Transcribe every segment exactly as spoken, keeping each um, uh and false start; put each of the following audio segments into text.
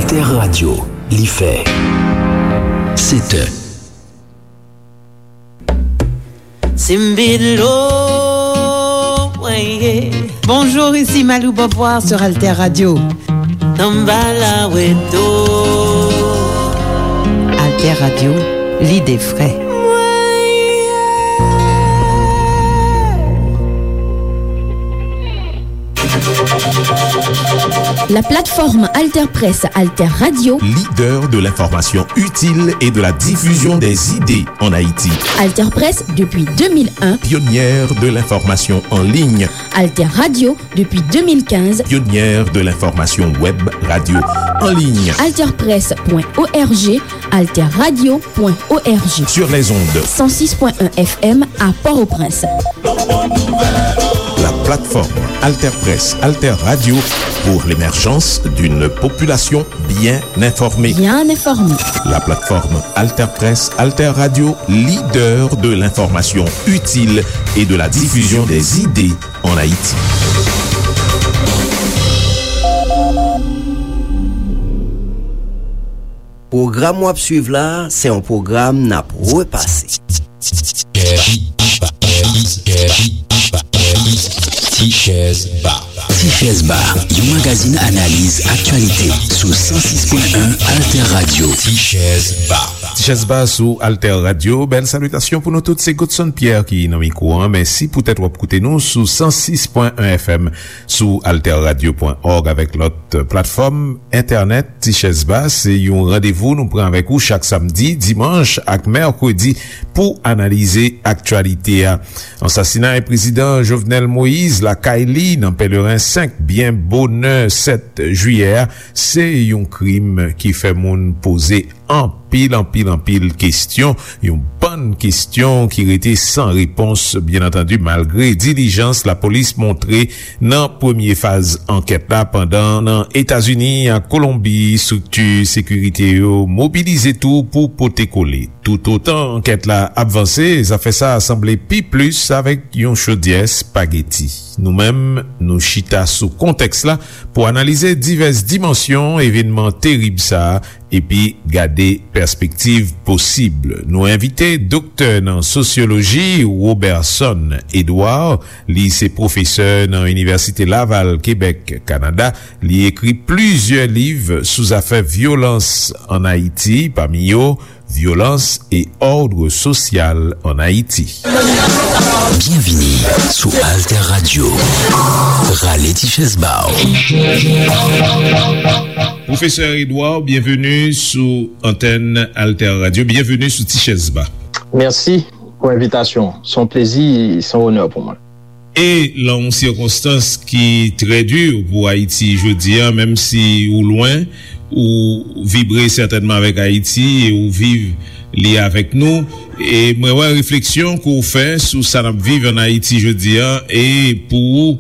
Alter Radio, li fè sèt è. Simbilo, weye. Bonjour, ici Malou Beauvoir sur Alter Radio. Tambala weto. Alter Radio, l'idée vraie. La plateforme Alter Presse, Alter Radio. Leader de l'information utile et de la diffusion des idées en Haïti. Alter Presse depuis deux mille un. Pionnière de l'information en ligne. Alter Radio depuis deux mille quinze. Pionnière de l'information web radio en ligne. Alter Presse point O R G, Alter Radio point O R G. Sur les ondes. Cent six point un F M à Port-au-Prince. La plateforme Alter Presse, Alter Radio pour l'émergence d'une population bien informée. Bien informée. La plateforme Alter Presse, Alter Radio, leader de l'information utile et de la diffusion des idées en Haïti. Pwogram w ap swiv la, se yon pwogram n ap repase. Tichèz Ba. Tichèz Ba, yon magazin analiz aktyalite sou san sis pwen en Alter Radio. Tichèz Ba. Tichèz Ba sou Alter Radio. Bèl salitasyon pou nou tout. Se Godson Pierre ki nan mikwo an. Mèsi poutèt w ap koute nou sou san sis pwen en F M, sou alter radio pwen òg avèk lòt platfòm entènèt. Tichèz Ba, se yon randevou nou pran avèk ou chak samdi, dimanch ak mèkredi pou analize aktyalite a. Ansasinay prezidan Jovenel Moïse lakay li nan Pèleren senk, byen bonè sèt jiyè a, se yon krim ki fè moun poze anpil, anpil, anpil kesyon, yon bann kesyon ki rete san repons, byen antandi, malgre dilijans lapolis montre nan premye faz ankèt la, pandan nan Etazini ak Kolonbi, estrikti sekirite yo mobilize tou pou pote kole. Toutotan ankèt la ap vanse, zafè sa a sanble pi plis avèk yon chodyè espageti. Nou menm, nou chita sou kontèks la pou analize divès dimansyon evènman terib sa a epi gade pèspektiv posib. Nou envite doktè nan sosyoloji Roberson Edouard. Li se pwofesè nan Inivèsite Laval, Kebèk, Kanada. Li ekri plizyè liv sou zafè vyolans ann Ayiti, pami yo Violence et ordre social en Haïti. Byenvini sou Alter Radio. Rale ti chèz ba w. Pwofesè Edouard, byenveni sou antèn Alter Radio. Byenveni sou Ti Chèz Ba. Mèsi pou envitasyon. Se yon plezi, se yon onè pou mwen. E nan yon sikonstans ki trè di pou Ayiti jodi a, menm si ou lwen, ou vibre sètènman avèk Ayiti e ou viv li avèk nou. E mwen wè refleksyon ke w fè sou sa n ap viv ann Ayiti jodi a, e pou ou,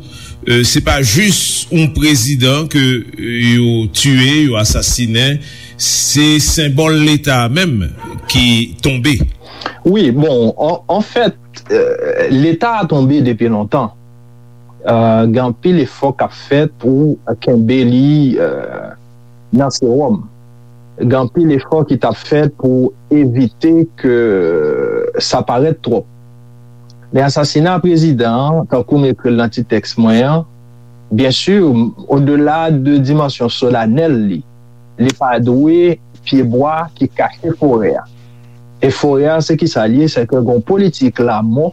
e, se pa jis yon prezidan ke, e, yo tiye, yo asasinen, se senbòl Leta a menm ki tonbe. Wi, bon, an, anfèt, e, Leta a tonbe depi lontan. E, gen anpil efò k ap fèt pou kenbe li, e, nan sewòm. Gen anpil efò ki t ap fèt pou evite ke sa parèt twòp. Men asasina prezidan an, tankou m ekri l nan ti tèks mwen an, byen si, odela de dimansyon solanèl li, li pa dwe pyebwa ki kache forè a. E forè a, se kisa l ye? Se ke gen yon politik lanmò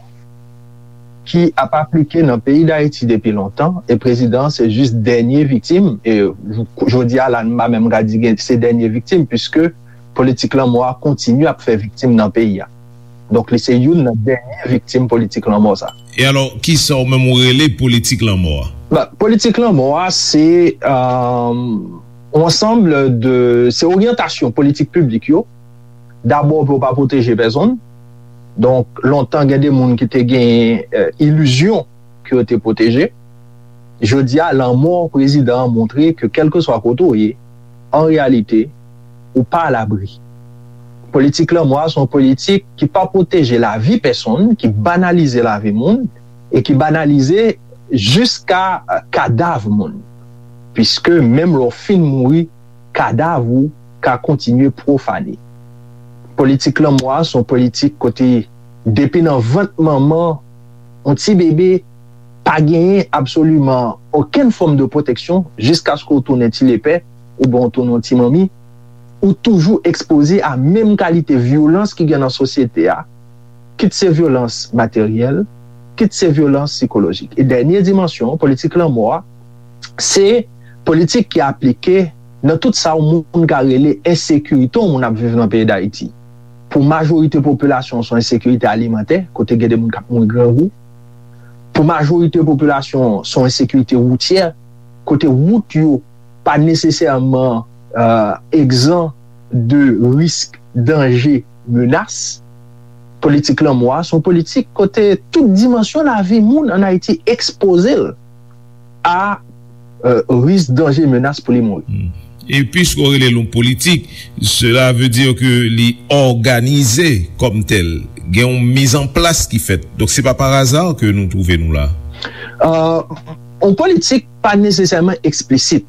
ki ap aplike nan peyi Dayiti depi lontan, e prezidan an se jis dènye viktim, e jodi a la, m pa menm ka di gen, se dènye viktim, piske politik lanmò a kontinye ap fè viktim nan peyi a. Donk, li se youn nan dènye viktim politik lanmò sa. E alò, kisa w menm ou rele politik lanmò a? Ba, politik lanmò a, se, e, yon ansanm de, se oryantasyon politik piblik yo, dabò pou yo pa pwoteje pèsonn. Donk, lontan gen de moun ki te gen, e, ilizyon ke yo te pwoteje. Jodi a, lanmò prezidan an montre ke kèlkeswa kote w ye, an reyalite, ou pa alabri. Politik lanmò a se yon politik ki pa pwoteje lavi pèsonn, ki banalize lavi moun, e ki banalize jiska, e, kadav moun. Piske menm lè w fin mouri, kadav ou ka kontinye pwofane. Politik lanmò a se yon politik kote depi nan vant manman yon ti bebe pa genyen absoliman okenn fòm de pwoteksyon jiskaske w tounen ti lepè oubyen w tounen yon ti manmi, ou toujou ekspoze a menm kalite vyolans ki gen nan sosyete a, kit se vyolans materyèl, kit se vyolans sikolojik. E dènye dimansyon politik lanmò a, se politik ki aplike nan tout sa yon moun ka rele ensekirite yon moun ap viv nan peyi Dayiti. Pou majorite popilasyon, se yon ensekirite alimantè, kote gen de moun k ap mouri grangou. Pou majorite popilasyon, se yon ensekirite woutyè, kote wout yo pa nesesèman egzan de risk, danje, menas. Politik lanmò a se yon politik kote tout dimansyon lavi moun ann Ayiti ekspoze l a risk, danje, menas pou li mouri. E piske w rele l yon politik, cela veut dire que li òganize kòm tèl. Gen yon mizanplas ki fèt. Donk, se pa par hasard ke nou twouve nou la. Yon politik pa nesesèman eksplisit.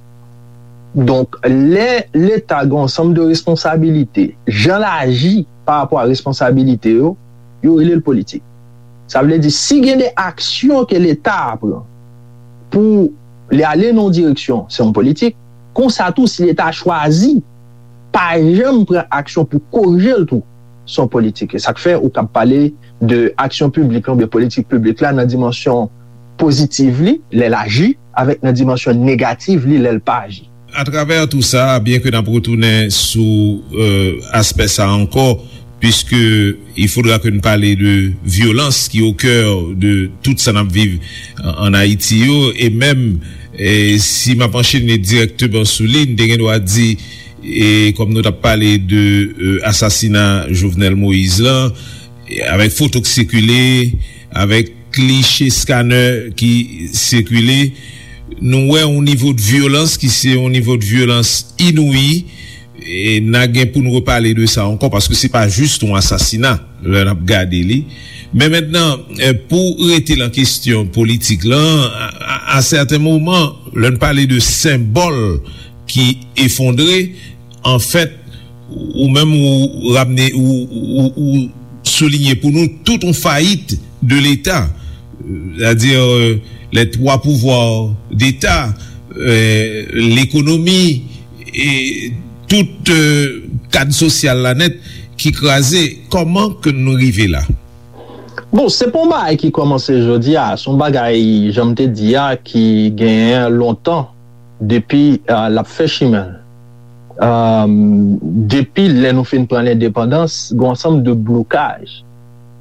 Donk, lè Leta gen yon ansanm de responsabilite, jan l aji pa rapò a responsabilite yo, yo rele l politik. Sa vle di, si gen de aksyon ke Leta a pran pou li ale nan yon direksyon, se yon politik. Konsa tou, si Leta a chwazi pa janm pran aksyon pou korije l tou, se yon politik. E sa k fè ou kab pale de aksyon piblik la oubyen politik piblik la nan dimansyon pozitiv li, lè l aji, avèk nan dimansyon negativ li, lè l pa aji. Atravè tou sa, byen ke n ap retounen sou aspè sa ankò, puisque il faudra que n pale de vyolans ki au cœur de tout sa n ap viv an Ayiti yo, e menm si m ap anchene dirèkteman sou li, n te gen dwa di, e kòm nou t ap pale de asasina Jovenel Moïse lan, avèk foto k sikile, avèk kliche scanner ki sikile, nou wè yon nivo de vyolans ki se yon nivo de vyolans inouyi. E n a gen pou n repale de sa ankò, paske se pa jis yon asasina lè n ap gade li. Men mentnan, pou rete lan kesyon politik lan, a sèten moman, lè n pale de senbòl ki efondre, anfèt, ou menm ou ramne, ou soulinye pou nou tout yon fayit de Leta, c'est-à-dire les trois pouvoirs d'État, l'économie, e tout kad sosyal la nèt ki kraze. Kòman ke nou rive la? Bon, se pa yon bagay ki kòmanse jodi a, se yon bagay, jan m te di a, ki genyen lontan depi l ap fè chimen l. Depi lè nou fin pran lendepandans, gen yon ansanm de blokaj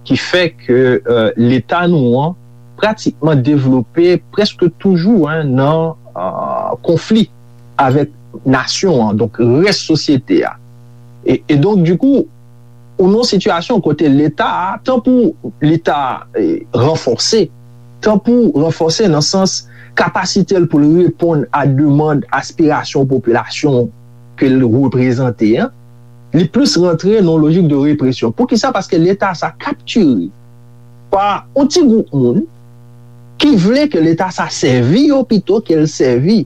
ki fè ke Leta nou an pratikman devlope prèske toujou nan konfli avèk nasyon an, donk rès sosyete a. E donk, dikou, ou nan yon sitiyasyon kote Leta a, tanpou Leta ranfòse, tanpou ranfòse nan sans kapasite l pou l reponn a demann, aspirasyon popilasyon ke l reprezante an, li plis rantre nan yon lojik de represyon. Poukisa? Paske Leta sa kaptire pa yon ti gwoup moun ki vle ke Leta sa sèvi yo pito ke l sèvi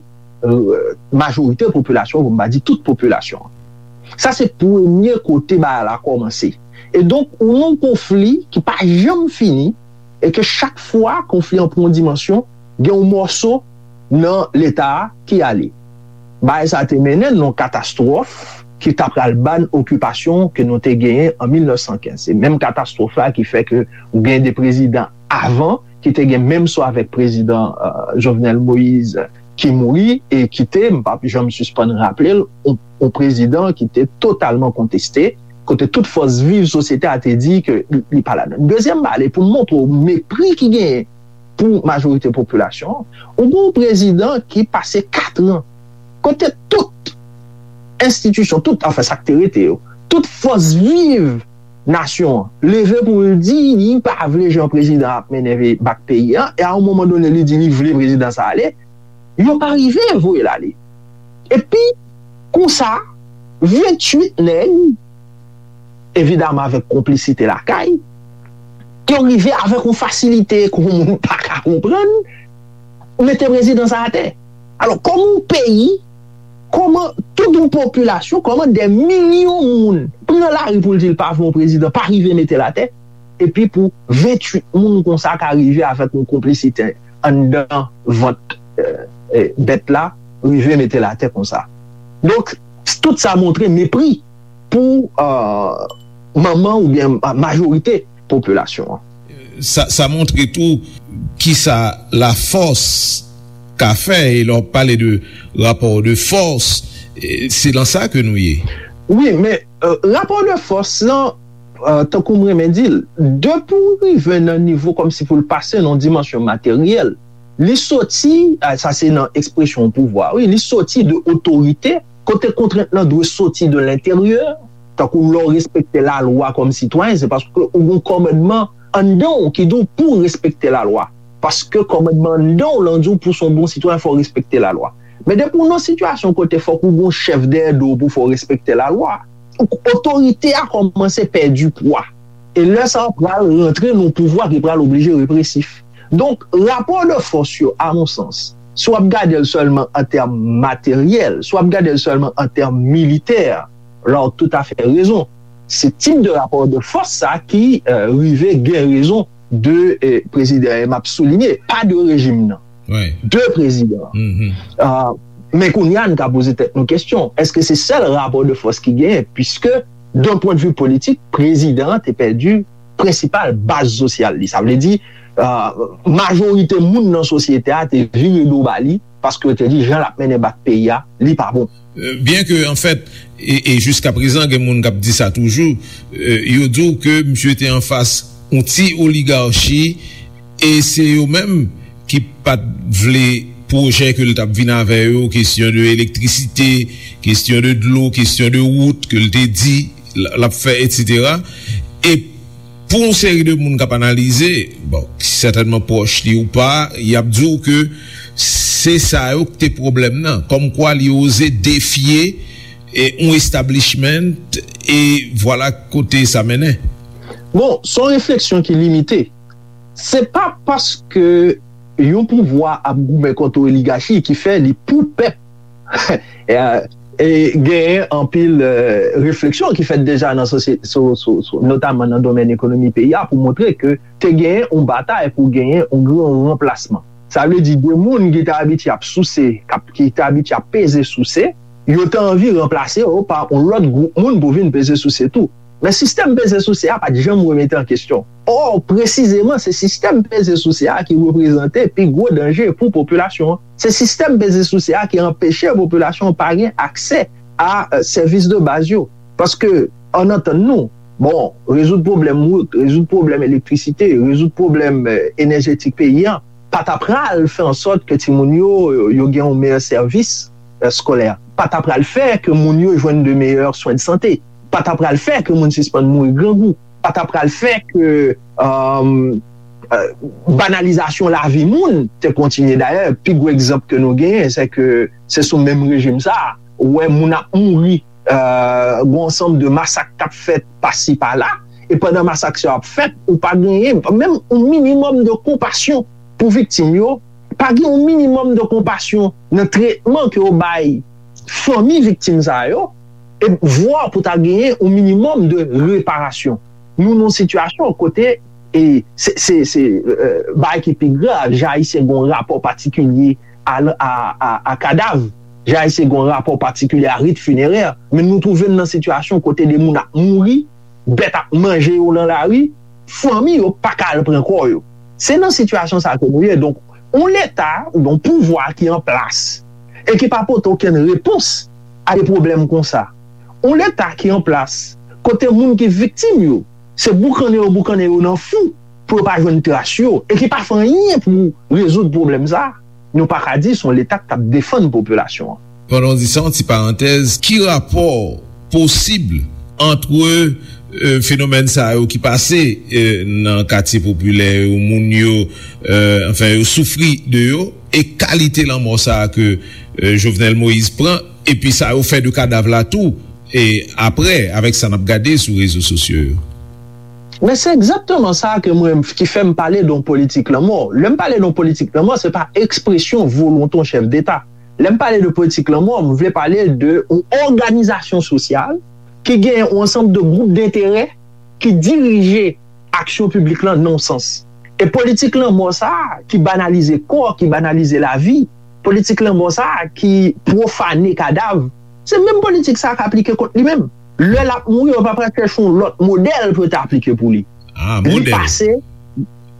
majorite popilasyon, pou m pa di tout popilasyon. Sa se premye kote bagay la kòmanse. E donk, ou nan yon konfli ki pa janm fini, e ke chak fwa konfli an pran yon dimansyon, gen yon mòso nan Leta a ki ale. Bagay sa te mennen n nan yon katastwòf ki ta pral ba n okipasyon ke nou te genyen an mil nèf san kenz. Se menm katastwòf la ki fè ke ou gen de prezidan avan ki te gen menm sò avèk prezidan Jovenel Moïse ki mouri e ki te, m p ap janm sispann raple l, yon prezidan ki te totalman konteste, kote tout fòs viv sosyete a te di ke li pa ladan. Dezyèm bagay, pou m montre w mepri ki genyen pou majorite popilasyon an, ou gen yon prezidan ki pase kat an kote tout enstitisyon, tout, anfen, sa k te rete yo, tout fòs viv nasyon an leve pou l di li pa vle jan prezidan ap mennen bak peyi a, e a yon moman done li di li vle prezidan sa ale, yo pa rive voye l ale. Epi, konsa, venntuit nèg, evidaman avèk konplisite lakay, yo rive avèk yon fasilite ke yon moun pa ka konprann, mete prezidan sa atè. Alò, kòman yon peyi, kòman tout yon popilasyon, kòman dè milyon moun pran lari pou l di l pa vle yon prezidan, pa rive mete l atè, epi pou venntuit moun konsa ka rive avèk yon konplisite anndan vant, eh, eh, bèt la, rive mete l atè konsa. Donk, tout sa montre mepri pou, eh, manman oubyen ma-, majorite popilasyon an. Sa, sa montre tou kisa lafòs ka fè, e lè w pale de rapò de fòs, e se lan sa ke nou ye. Wi, men, eh, rapò de fòs lan, eh, tankou m renmen di l, depi w rive nan nivo kòmsi pou l pase nan yon dimansyon materyèl, li soti, ah, sa se nan ekspresyon pouvwa, wi, li soti de otorite, kote kontrent lan dwe soti de lenteryè, tankou lè w respekte lalwa kòm sitwayen, se paske ou gen yon kòmandman anndan w ki di w pou w respekte lalwa. Paske kòmandman anndan w lan di w pou w se yon bon sitwayen, fò w respekte lalwa. Men depi w nan sitiyasyon kote fòk ou gen yon chèf dèyè do w pou fè w respekte lalwa, otorite a kòmanse pèdi pwa. E lè sa a pral rantre nan yon pouvwa ki pral oblije represif. Donk, rapò de fòs yo, a mon sans, si w ap gade l sèlman an tèm materyèl, si w ap gade l sèlman an tèm militè, la w toutafè rezon. Se tip de rapò de fòs sa ki, eh, rive gen rezon de, eh, prezidan, e m ap soulinye, pa de rejim nan. De prezidan. Ah, men kounye a, n ka poze tèt nou kesyon, èske se sèl rapò de fòs ki genyen? Piske, d'un point de vue politik, prezidan an te pèdi prensipal baz sosyal li. Sa vle di, ah, majorite moun nan sosyete a te vire do ba li, paske yo te di jan l ap mennen bak peyi a, li pa bon. Euh, byen ke, anfèt, e, e jiskaprezan, gen moun k ap di sa toujou, euh, yo di w ke misye te anfas yon ti oligachi, e se yo menm ki pa t vle pwojè ke l t ap vin avè yo, kesyon de elektrisite, kesyon de dlo, kesyon de wout ke l te di l, l ap fè, etsetera. E pou yon seri de moun k ap analize, bon, ki sètènman pwòch li ou pa, y ap di w ke se sa yo k te pwoblèm nan. Kòmkwa li oze defye, e, yon establishment, e vwala kote sa mennen. Bon, se yon refleksyon ki limite. Se pa paske yon pouvwa ap goumen kont yon oligachi ki fè li pou pèp. E, e genyen anpil, eh, refleksyon ki fèt deja nan sosye-, so-, so-, so-, notaman nan domèn ekonomi peyi a pou montre ke te genyen yon batay pou genyen yon gran ranplasman. Sa vle di de moun ki te abitye ap souse, k ap, ki te abitye ap peze souse, yo te anvi ranplase yo pa yon lòt gwoup moun pou vin peze souse tou. Men sistèm peze souse a pa t janm remete an kesyon. Ò, presizeman, se sistèm peze souse a ki reprezante pi gwo danje pou popilasyon an. Se sistèm peze souse a ki anpeche popilasyon an pa gen aksè a, eh, sèvis de baz yo. Paske, ann antann nou, bon, rezoud pwoblèm wout, rezoud pwoblèm elektrisite, rezoud pwoblèm, eh, enèjetik peyi a, pa ta pral fè an sòt ke timoun yo, yo gen yon meyè sèvis, eh, eskolè. Pa ta pral fè ke moun yo jwenn de meyè swen de sante. Pa ta pral fè ke moun sispann mouri grangou. Pa ta pral fè ke, um, eh, banalizasyon lavi moun te kontinye. Dayè, pi gwo egzanp ke nou genyen, se ke se sou menm rejim sa a, ou wè moun ap mouri, eh, gen yon ansanm de masak k ap fèt pasi pala, e pandan masak sa yo ap fèt, ou pa genyen menm yon minimòm de konpasyon pou viktim yo, pa gen yon minimòm de konpasyon nan tretman ke yo bay fanmi viktim sa yo, e vwa pou ta genyen yon minimòm de reparasyon. Nou nan yon sitiyasyon kote, e se, se, se, eh, bagay ki pi grav, jan Ayisyen gen yon rapò patikilye a, a, a, a kadav, jan Ayisyen gen yon rapò patikilye a rit finerè, men nou twouve n nan sitiyasyon kote de moun ap mouri, bèt ap manje yo nan lari, fanmi yo pa ka al pran kò yo. Se nan sitiyasyon sa ke nou ye. Donk, yon leta oubyen yon pouvwa ki an plas e ki pa pote okenn repons a de pwoblèm konsa. Yon leta ki an plas kote moun ki viktim yo, se boukannen yo boukannen yo nan fou pou yo pa jwenn tras yo, e ki pa fè anyen pou rezoud pwoblèm sa a, nou pa ka di se yon leta k t ap defann popilasyon an. Pandan w di sa, yon ti parantèz, ki rapò posib ant, euh, fenomèn sa yo ki pase, euh, nan katye popilè yo, moun yo, euh, anfen, yo soufri de yo, e kalite lanmò sa a ke, euh, Jovenel Moïse pran, epi sa yo fè de kadav la tou, e apre, avèk sa n ap gade sou rezo sosyo yo? Men se egzakteman sa ke mwen, ki fè m pale de yon politik lanmò. Lè m pale de yon politik lanmò, se pa ekspresyon volonte yon chèf deta. Lè m pale de politik lanmò, m vle pale de yon òganizasyon sosyal ki gen yon ansanm de gwoup denterè ki dirije aksyon piblik lan nan yon sans. E politik lanmò sa a ki banalize kò, ki banalize lavi, politik lanmò sa a ki pwofane kadav, se menm politik sa a k aplike kont li menm. Lè l ap mouri, yo pa pral chèche yon lòt modèl pou yo te aplike pou li. Ah, li modèl. Pase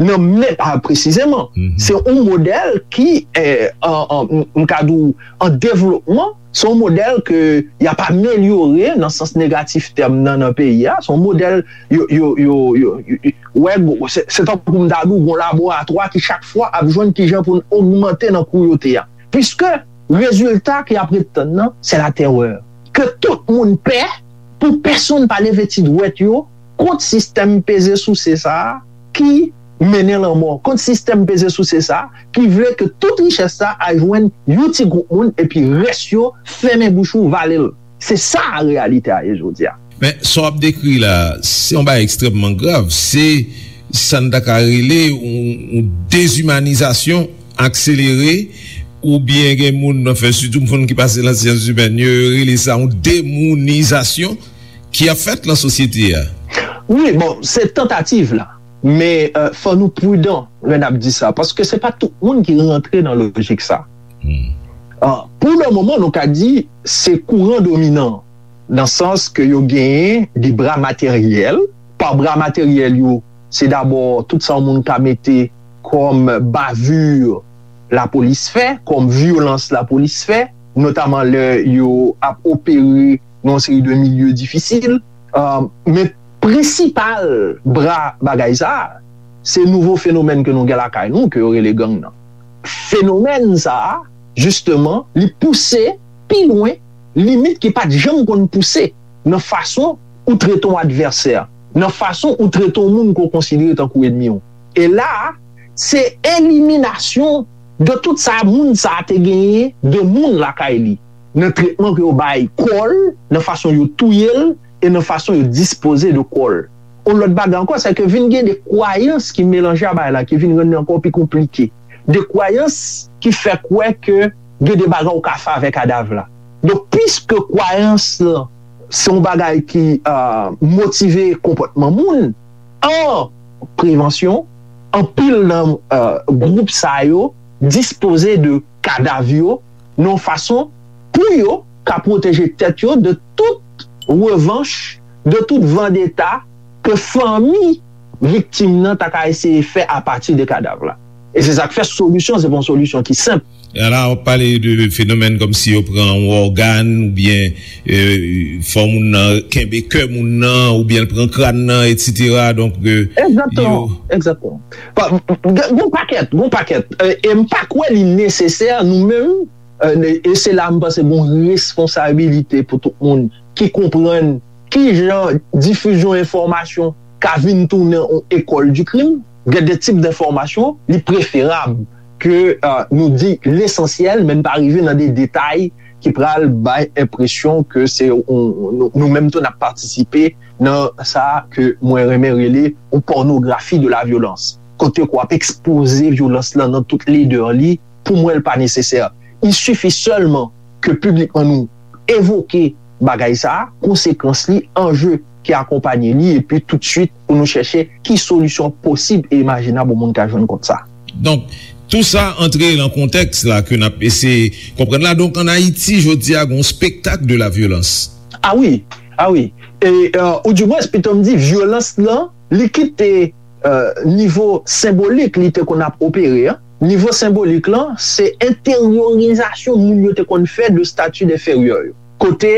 nan men, ah, presizeman. Mhm. Se yon modèl ki, eh, an, an, m, m ka di w, an devlopman, se yon modèl ke y ap amelyore nan sans negatif tèm nan, nan peyi a. Se yon modèl, yo, yo, yo, yo, yo, yo, wè, gwo, se, se tankou m ta di w, gon laboratwa ki chak fwa ap jwenn kijan pou n ogmante nan kouyote a. Piske rezilta ke y ap ret tann nan, se latèrè. Ke tout moun pè, pou pèsonn pa leve ti dwèt yo kont sistèm peze souse sa a ki mennen lanmò, kont sistèm peze souse sa a ki vle ke tout richès sa a al jwenn yon ti gwoup moun epi rès yo fèmen bouch ou, vale l. Se sa reyalite a ye jodi a. Men, sa w ap dekri la, se yon bagay ekstrèmman grav. Se sa n ta ka rele yon, yon dezimanizasyon akselere, oubyen gen moun nan fè, sitou moun ki pase nan syans imèn yo, yo rele sa yon demounizasyon ki ap fèt nan sosyete a. Wi, bon, se tantativ la. Men, euh, fò nou pridan lè n ap di sa, paske se pa tout moun ki rantre nan lojik sa. Hmm. Ah, pou le moman, nou ka di se kouran dominan, nan sans ke yo genyen de bra materyèl. Pa bra materyèl yo, se dabò tout sa yon moun ka mete kòm bavure lapolis fè, kòm vyolans lapolis fè, notaman lè yo ap opere nan yon seri de milye difisil. Ah, men prensipal bra bagay sa a, se nouvo fenomèn ke nou gen lakay nou, ke yo rele gang nan. Fenomèn sa a, jisteman, li pouse pi lwen limit ki pa t janm konn pouse nan fason ou trete yon advèsè, nan fason ou trete yon moun ke w konsidere tankou ènmi w. E la a, se eliminasyon de tout sa moun sa a te genyen de moun lakay li, nan tretman ke yo bay kò l, nan fason yo touye l, e nan fason yo dispoze de kò l. Yon lòt bagay ankò, se ke vin gen de kwayans ki melanje a bagay la, ki vin rann li ankò pi konplike. De kwayans ki fè kwè ke gen de bagay ou ka fè avèk kadav la. Donk, piske kwayans lan se yon bagay ki, euh, motive konpòtman moun, an prevansyon, anpil nan, euh, gwoup sa yo dispoze de kadav yo nan yon fason pou yo ka pwoteje tèt yo de tout revanch, de tout vandeta ke fanmi viktim nan ta ka eseye fè apati de kadav la. E se sa k fè solisyon, se pa yon solisyon ki senp. E la, w ap pale de fenomèn kòmsi yo pran yon ògàn, oubyen, euh, fò moun nan kenbe kè moun nan, oubyen l pran kràn nan, etsetera. Donk, euh, egzakteman, yo egzakteman. Pa, gon pakèt, gon pakèt. Euh, e m pa kwè li nesesè, nou menm, euh, e se la m panse gon responsabilite pou tout moun ki konprann ki jan difizyon enfòmasyon ka vin tounen yon école du crime. Gen de tip enfòmasyon, li preferab ke, euh, nou di lesansyèl, men n pa rive nan de detay ki pral bay enpresyon ke se yon, nou, nou menm tou n ap patisipe nan sa ke mwen renmen rele yon pònografi de la vyolans. Kote ke w ap ekspoze vyolans lan nan tout ledè li, pou mwen, l pa nesesè. Il suffit seulement ke piblikman nou evoke bagay sa a, konsekans li, anje ki akonpanye li, epi toutswit pou nou chèche ki solisyon posib e imajinab yon moun ka jwenn kont sa. Donk, tou sa antre nan kontèks la ke n ap eseye konprann la. Donk, ann Ayiti, jodi a, gen yon spektak de la vyolans. Ah wi, ah wi. E, euh, oudimwens, pito m di, vyolans lan, li kite, euh, nivo senbolik li te konn ap opere an. Nivo senbolik lan, se enteryorizasyon moun yo te konn fè de stati enferyè yo. Kote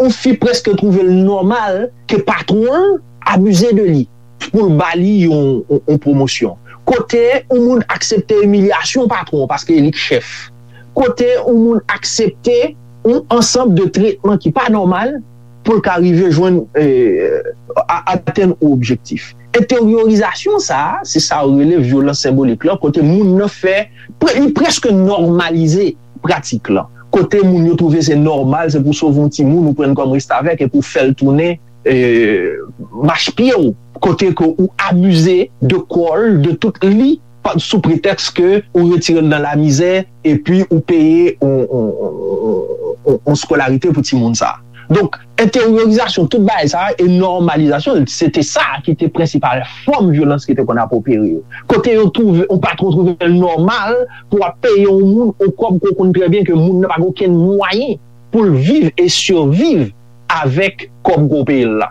yon fi prèske twouve l nòmal ke patwon l abize de li pou l ba li yon, yon, yon pwomosyon. Kote yon moun aksepte imilyasyon patwon paske e li k chèf. Kote yon moun aksepte yon ansanm de tretman ki pa nòmal pou l ka rive jwenn, eh, a-, atenn yon objektif. Enteryorizasyon sa a, se sa yo rele vyolans senbolik lan, kote moun nan fè, pre-, li prèske nòmalize pratik lan. Kote moun yo twouve se nòmal, se pou sove yon timoun ou pran l kòm restavèk epi w fè l tounen, eh, machpye w. Kote ke ou abize de kò l, de tout li, pa- sou pretèks ke ou retire l nan lamizè, epi ou peye yon, yon, yon, yon, yon skolarite pou timoun sa a. Donk, enteryorizasyon tout bagay sa a e nòmalizasyon l, se te sa ki te prensipal fòm vyolans ki te konn ap opere yo. Kote yo twouve, yon patwon twouve l nòmal pou w ap peye yon moun yon kòb ke w konn trè byen ke moun nan pa gen okenn mwayen pou l viv e siviv avèk kòb ke w peye l la.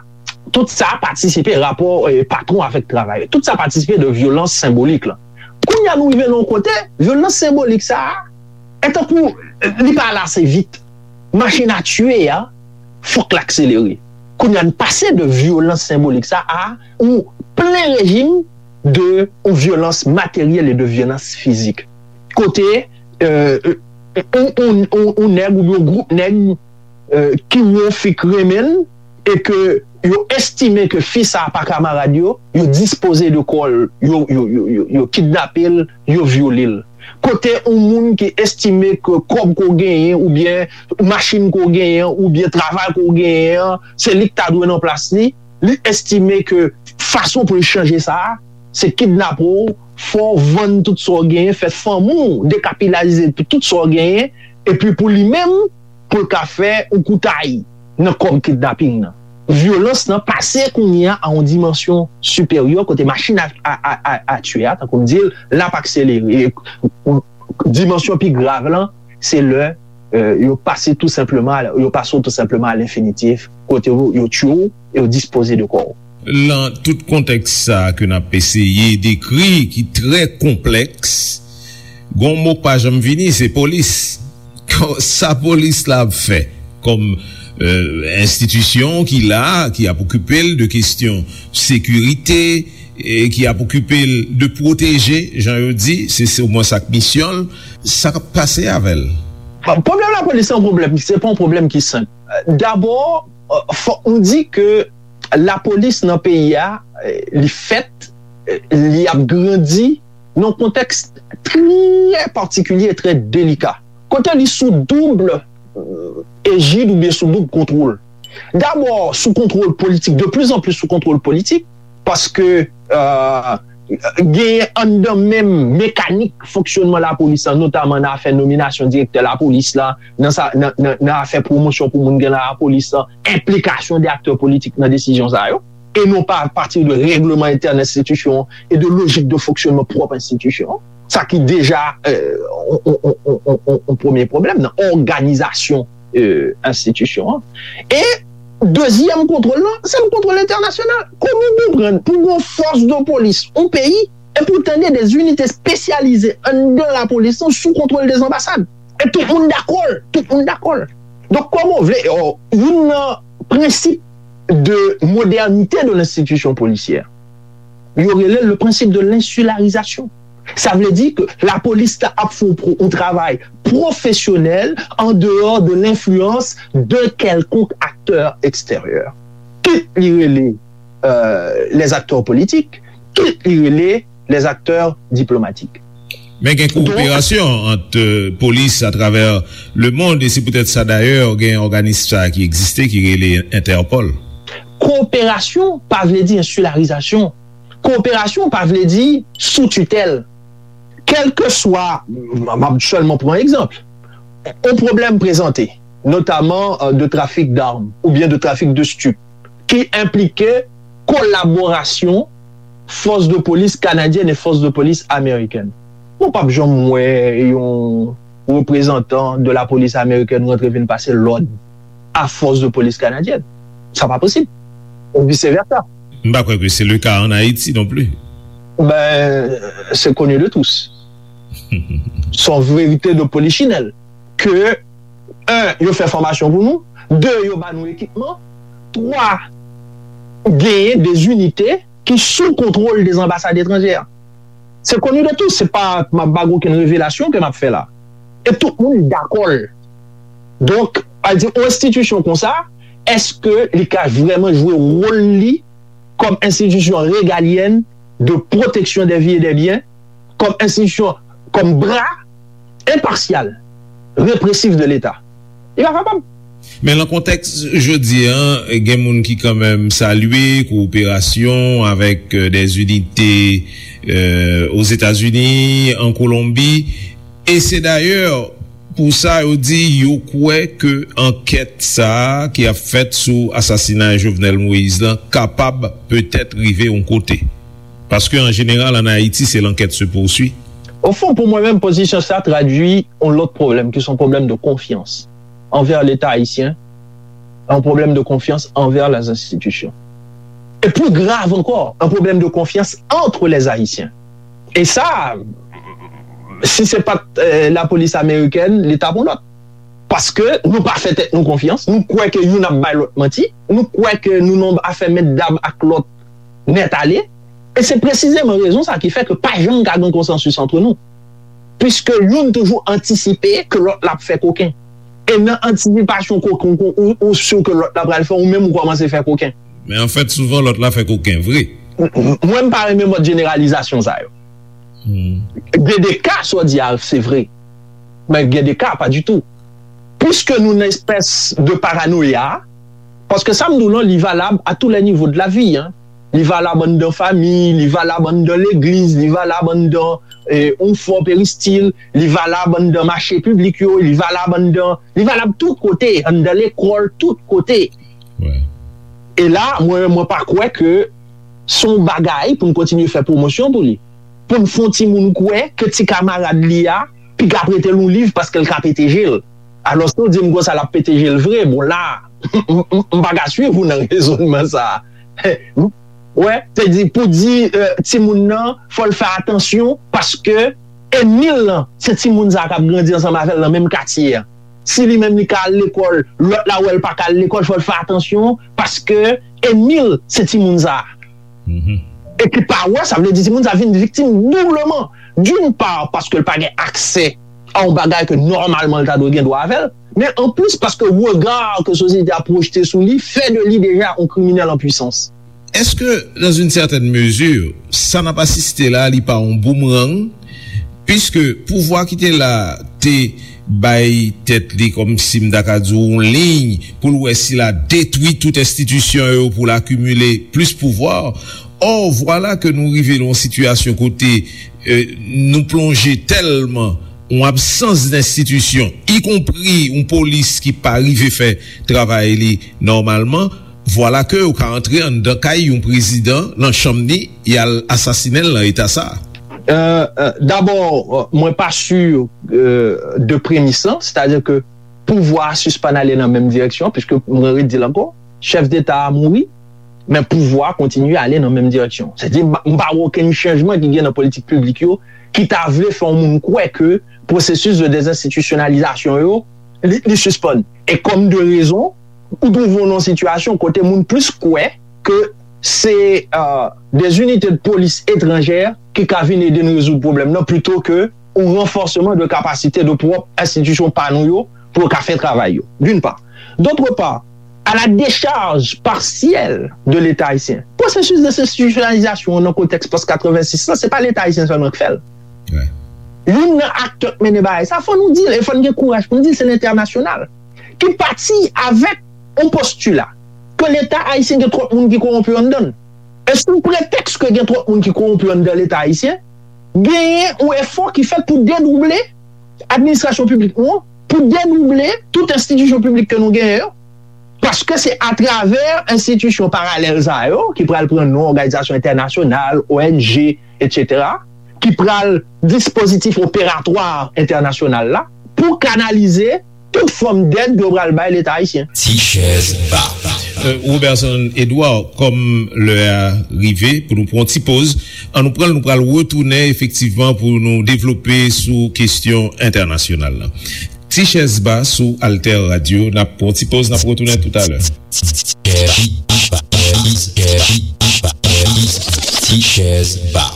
Tout sa patisipe rapò eh, patwon avèk travayè. Tout sa patisipe de vyolans senbolik la. Kounye a nou rive nan yon kote, vyolans senbolik sa a, e tankou eh, li pa ale ase vit. Machin a tiye a, fòk l akselere. Kounye a n pase de vyolans senbolik sa a ou plen rejim de ou vyolans materyèl e de vyolans fizik. Kote eh, ou, ou, ou, ou nèg oubyen yon gwoup nèg eh, ki wè yon fi k renmen l e ke yo estime ke fi sa a pa kamarad yo, yo dispoze de kò l, yo, yo, yo, yo, yo kidnape l, yo vyole l. Kote yon moun ki estime ke kòb ke w genyen oubyen machin ke w genyen oubyen travay ke w genyen an, se li k ta dwe nan plas li, li estime ke fason pou l chanje sa a, se kidnape w, fè w vann tout sa w genyen, fè fanmi w dekapitalize pou tout sa w genyen, epi pou li menm, pou l ka fè yon koutay nan kòb kidnaping nan. Vyolans lan pase kounye a a yon dimansyon siperyè kote machin a, a, a, a, a tiye a, tankou m di l, l ap akselere. E, dimansyon pi grav lan, se lè eh, yo pase tou senpleman, yo pase w tou senpleman a lenfinitif, kote yo, yo tiye w e yo dispoze de kò w. Lan tout kontèks sa a ke n ap eseye dekri, ki trè konplèks, gon mo k pa janm vini, se polis. Sa polis la ap fè kòm eh, enstitisyon ki la, ki ap okipe l de kesyon sekirite, e ki ap okipe l de pwoteje, jan yo di, se, se omwen sa k misyon l, sa k ap pase avè l? Bon, pwoblèm lapolis se yon pwoblèm, se pa yon pwoblèm ki senp. Dabò, eh, fòk nou di ke lapolis nan peyi a, eh, li fèt, eh, li ap grandi nan yon kontèks trè patikilye e trè delika. Kote li sou doub eh, ejid oubyen sou doub kontwòl. Dabò, sou kontwòl politik, de plus en plus sou kontwòl politik, paske eh, genyen anndan menm mekanik fonksyònman lapolis lan, notaman nan afè nominasyon direktè lapolis la, nan, sa, nan, nan, nan afè pwomosyon pou moun gen nan lapolis lan, enplikasyon de aktè politik nan desizyon sa yo, e non pa apati de règleman entèn enstitisyon an e de lojik de fonksyònman pwòp enstitisyon an. Sa ki deja eh, on, on, on, on, on, on premye pwoblèm nan òganizasyon eh, enstitisyon an. E dezyèm kontwòl lan, se yon kontwòl entènasyonal. Kòman w konprann pou gon fòs de polis, yon peyi, e pou tande de zinite espesyalize anndan lapolis lan sou kontwòl de anbasad? E tout moun dakò l, tout moun dakò l. Donk, kòman w vle, oh, youn nan prensip de modernité de l'institution policière, yo rele le principe de l'insularisation. Sa vle di ke lapolis la ap fè yon pro- yon travay pwofesyonèl an dehors de l'influence de quelconque acteur extérieur. Kit li rele euh, les acteurs politiques, kit li rele les acteurs diplomatiques. Men gen kowoperasyon ant euh, polis atravè lemonn, e se poutèt sa dayè gen òganis sa ki egziste ki rele Entèpòl. Kowoperasyon pa vle di ensilarizasyon. Kowoperasyon pa vle di sou titèl. Kèlkeswa, m ap sèlman pran egzanp, yon pwoblèm prezante, notaman euh, de trafik d'armes oubyen de trafik de stup, ki enplike kolaborasyon fòs de polis kanadyèn e fòs de polis amerikèn. Ou p ap janm wè yon reprezantan de lapolis amerikèn rantre vin pase lòd a fòs de polis kanadyèn. Sa pa posib. Ou vice versa. M pa kwè ke se le ka an Ayiti non pli. Ben, c'est connu de tous. Son verite de polichinèl. Ke, un, yo fè fòmasyon pou nou. De, yo ba nou ekipman. Twa, genyen de zinite ki sou kontwòl de anbasad etranjè. Se koni de tous, se pa, m ap ba okenn revelasyon ke m ap fè la. E tout moun dakò l. Donk, pa di, yon enstitisyon konsa, èske li ka vrèman jwe wòl li kòm enstitisyon regalyèn de pwoteksyon dè vi e dè byen, kòm enstitisyon, kòm bra enpasyal, represif de Leta? Li pa kapab. Men nan kontèks jodi a, gen moun ki kanmenm salye kowoperasyon avèk, euh, des unités, euh, Ozetazini, an Kolonbi. E se dayè pou sa yo di yo kwè ke ankèt sa a ki ap fèt sou asasinay Jovenel Moïse lan kapab petèt rive yon kote. Paske an jeneral, an Ayiti, se l'enquête se poursuit. Au fond, pour moi-même, position sa traduit un autre problème, qui est un problème de confiance envers l'État haïtien, un problème de confiance envers les institutions. Et plus grave encore, un problème de confiance entre les Haïtiens. Et ça, si c'est pas euh, la police américaine, l'État pour l'autre. Paske nou pa fè tèt nou konfyans, nou kwè ke youn ap bay lòt manti, nou kwè ke nou nan afè mèt dam ak lòt nèt ale. E se presizeman rezon sa ki fè ke pa janm ka gen konsansis antre nou. Piske youn toujou antisipe ke lòt la ap fè koken. E nan antisipasyon koken ou, ou, ou si ke lòt la pral fè, ou menm ou kòmanse fè koken. Men anfèt, souvan lòt la fè koken vre. M- m- Mwen, m pa renmen mòd jeneralizasyon sa yo. Gen de ka, sa w di a, se vre. Men gen de ka, pa ditou. Piske nou nan espès de paranoya, paske sa m di w lan, li valab à tous les niveaux de la vie, hein. Li valab anndan fanmi, li valab anndan legliz, li valab anndan eh, yon fò peristil, li valab anndan mache piblik yo, li valab anndan, li valab tout kote, anndan lekòl, tout kote. E la, mwen, mwen pa kwè ke se yon bagay pou n kontinye fè pwomosyon pou li. Pou n fè yon timoun kwè ke ti kamarad li a piga prete l yon liv paske l ka pete je l. Alòske w di m konsa l ap pete je l vre. Bon, la, m, m, m pa ka swiv ou nan rezònman sa a. Wè, se di, pou di eh, timoun nan, fò l fè atansyon, paske ènmi l lan, se timoun sa a k ap grandi ansanm avè l nan menm katye a. Si li menm li ka al lekòl, lòt la wè l pa ka al lekòl, fò l fè atansyon, paske ènmi l, se timoun sa a. E ki pa wè, sa vle di timoun sa a vin viktim doubleman. D'une part, paske l pa gen aksè a yon bagay ke nòmalman l ta dwe gen dwa avè l, men anplis paske rega ke sosyete a pwojte sou li fè de li deja yon kriminèl an pwisans. Èske, dans une certaine mesure, sa n ap asiste la, li pa yon boomerang? Piske pouvwa ki te la te bay tèt li, kòmsi m ta ka di w, yon liy pou l wè si l a detwi tout enstitisyon yo pou l akimile plis pouvwa. Or, vwala ke nou rive nan yon sitiyasyon kote eh, nou plonje tèlman yon absans d enstitisyon, ikonpri yon polis ki pa rive fè travay li nòmalman, vwala ke ou ka antre anndan kay yon prezidan, nan chanm li, y al asasinen l nan eta sa a. Euh, euh, D'abord, euh, mwen pa sur euh, de premis lan, c'est-à-dire que pouvwa a sispann ale nan menm direksyon, piske mwen redi l ankò, chèf deta a mouri, men pouvwa a kontinye ale nan menm direksyon. Sètadi, m pa wè okenn chanjman ki gen nan politik piblik yo ki ta vle fè yon moun kwè ke pwosesis de dezenstitisyonalizasyon yo, li, li sispann. E kòm de rezon, ou twouve w nan yon sitiyasyon kote moun plis kwè ke se euh, des unités de police étrangères ki ka vin ede n rezoud pwoblèm nan, plito ke yon ranfòsman de kapasite de pwòp enstitisyon pa nou yo pou yo ka fè travay yo, d'une part. D'autre part, à la décharge partielle de l'État haïtien. Pwosesis dezenstitisyonalizasyon an nan kontèks pòs katrevensis lan, se pa Leta ayisyen sèlman k fè l. Youn nan aktè k mennen bagay sa, fò nou di l, e fò n gen kouraj pou n di l, se lentènasyonal ki pati avèk yon postila ke Leta ayisyen gen twòp moun ki kowonpi anndan l. E sou pretèks ke gen twòp moun ki kowonpi anndan Leta ayisyen, genyen yon efò ki fèt pou dedouble administrasyon piblik nou an, pou dedouble tout enstitisyon piblik ke nou genyen yo, paske se atravè enstitisyon paralèl sa yo, ki pral pran non òganizasyon entènasyonal, O N G, etsetera, ki pral dispozitif operatwa entènasyonal la, pou kanalize tout fòm dèd yo pral bay Leta ayisyen. Ti chèz ba. Euh, Roberson Edouard, kòm lè a rive pou nou pran yon ti poz, an nou pran l, nou pral retounen efektivman pou nou devlope sou kesyon entènasyonal la. Ti chèz ba sou Alter Radio, n ap pran yon ti poz, n ap retounen toutalè. Ti chèz ba.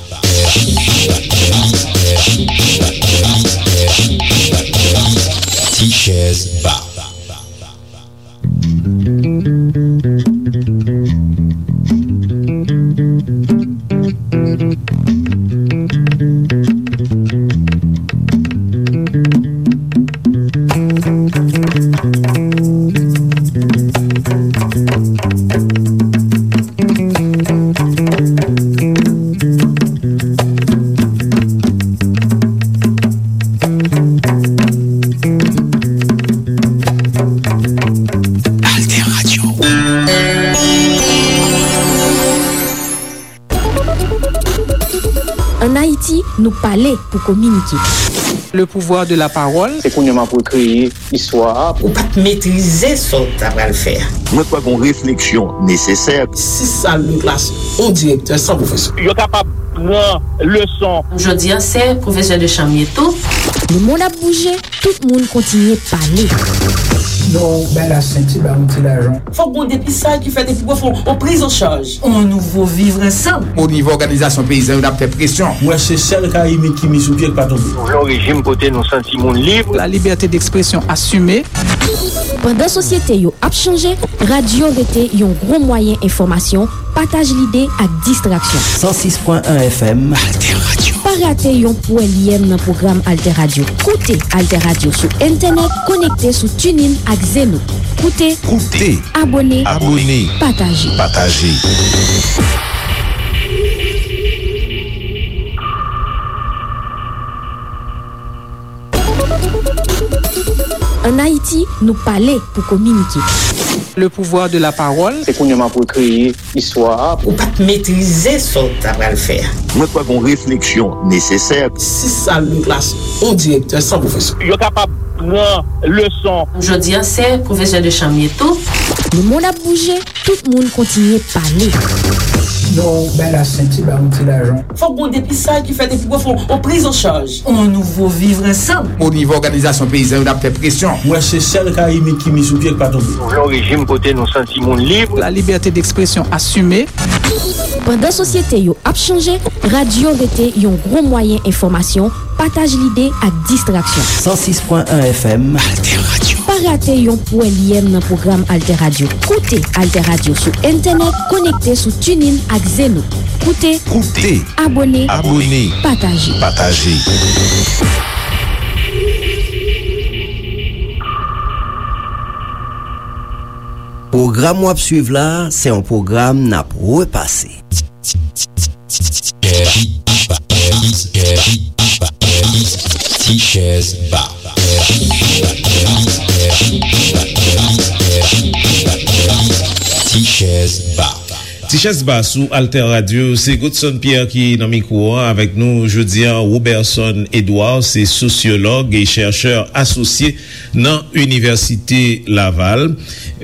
Ti chèz ba. Alter Radio. Ann Ayiti, nou pale pou kominike. Le pouvoir de la parole. Se kounye a m ap rekreye istwa a. Ou pa t metrize sa w ta pral fè a. Mwen kwè gon refleksyon nesesè. Sis sal de klas, yon direktè san pwofesè. Yo kapab pran leson. Jodi a, se pwofesè de chanm ye tou. Lemonn ap bouje, tout moun kontinye pale. Non, bay la senti, ba yon ti lajan. Fòk gon depistaj ki fèt epi pou fè yon priz an chaj. On nouvo vivre ansanm. O nivo òganizasyon peyizan yo, n ap fè presyon. Mwen se sèl Karayib ki mi sou pye k pa tonbe. Nou vle yon rejim kote nou santi moun lib. La liberté d'expression assumée. Pandan sosyete yo ap chanje, radyo rete yon gwo mwayen enfòmasyon, pataj lide ak distraksyon. San sis pwen en F M. Alter Radio. Pa rate yon pwèlyèm nan pwogram Alter Radio. Koute Alter Radio sou entènèt, konekte sou TuneIn ak Zeno. Koute. Koute. Abòne. Abòne. Pataje. Pataje. Ann Ayiti, nou pale pou kominike. Le pouvoir de la parole. Se kounye a m ap rekreye istwa a. Ou pa t metrize sa w ta pral fè a. Mwen kwè gon refleksyon nesesè. Sis sal de klas, yon direktè san pwofesè. Yo kapab pran leson. Jodi a, se pwofesè de chanm ye tou. Lemonn ap bouje, tout moun kontinye pale. Non, bay la senti, ba yon ti lajan. Fòk gon depistaj ki fèt epi pou fè yon priz an chaj. On nouvo vivre ansanm. O nivo òganizasyon peyizan yo, n ap fè presyon. Mwen se sèl Karayib ki mi sou pye k pa tonbe. Nou vle yon rejim kote nou santi moun lib. La liberté d'expression assumée. Pandan sosyete yo ap chanje, radyo rete yon gwo mwayen enfòmasyon, pataj lide ak distraksyon. San sis pwen en F M. Alter Radio. Pa rate yon pwèlyèm nan pwogram Alter Radio. Koute Alter Radio sou entènèt, konekte sou TuneIn ak Zeno. Koute. Koute. Abòne. Abòne. Pataje. Pataje. Pwogram w ap swiv la, se yon pwogram n ap repase. Ti chèz ba. Ti chèz ba. Ti chèz ba sou Alter Radio, se Godson Pierre ki nan mikwo an avèk nou jodi a. Roberson Edouard, se sosyològ e chèchè asosye nan Inivèsite Laval.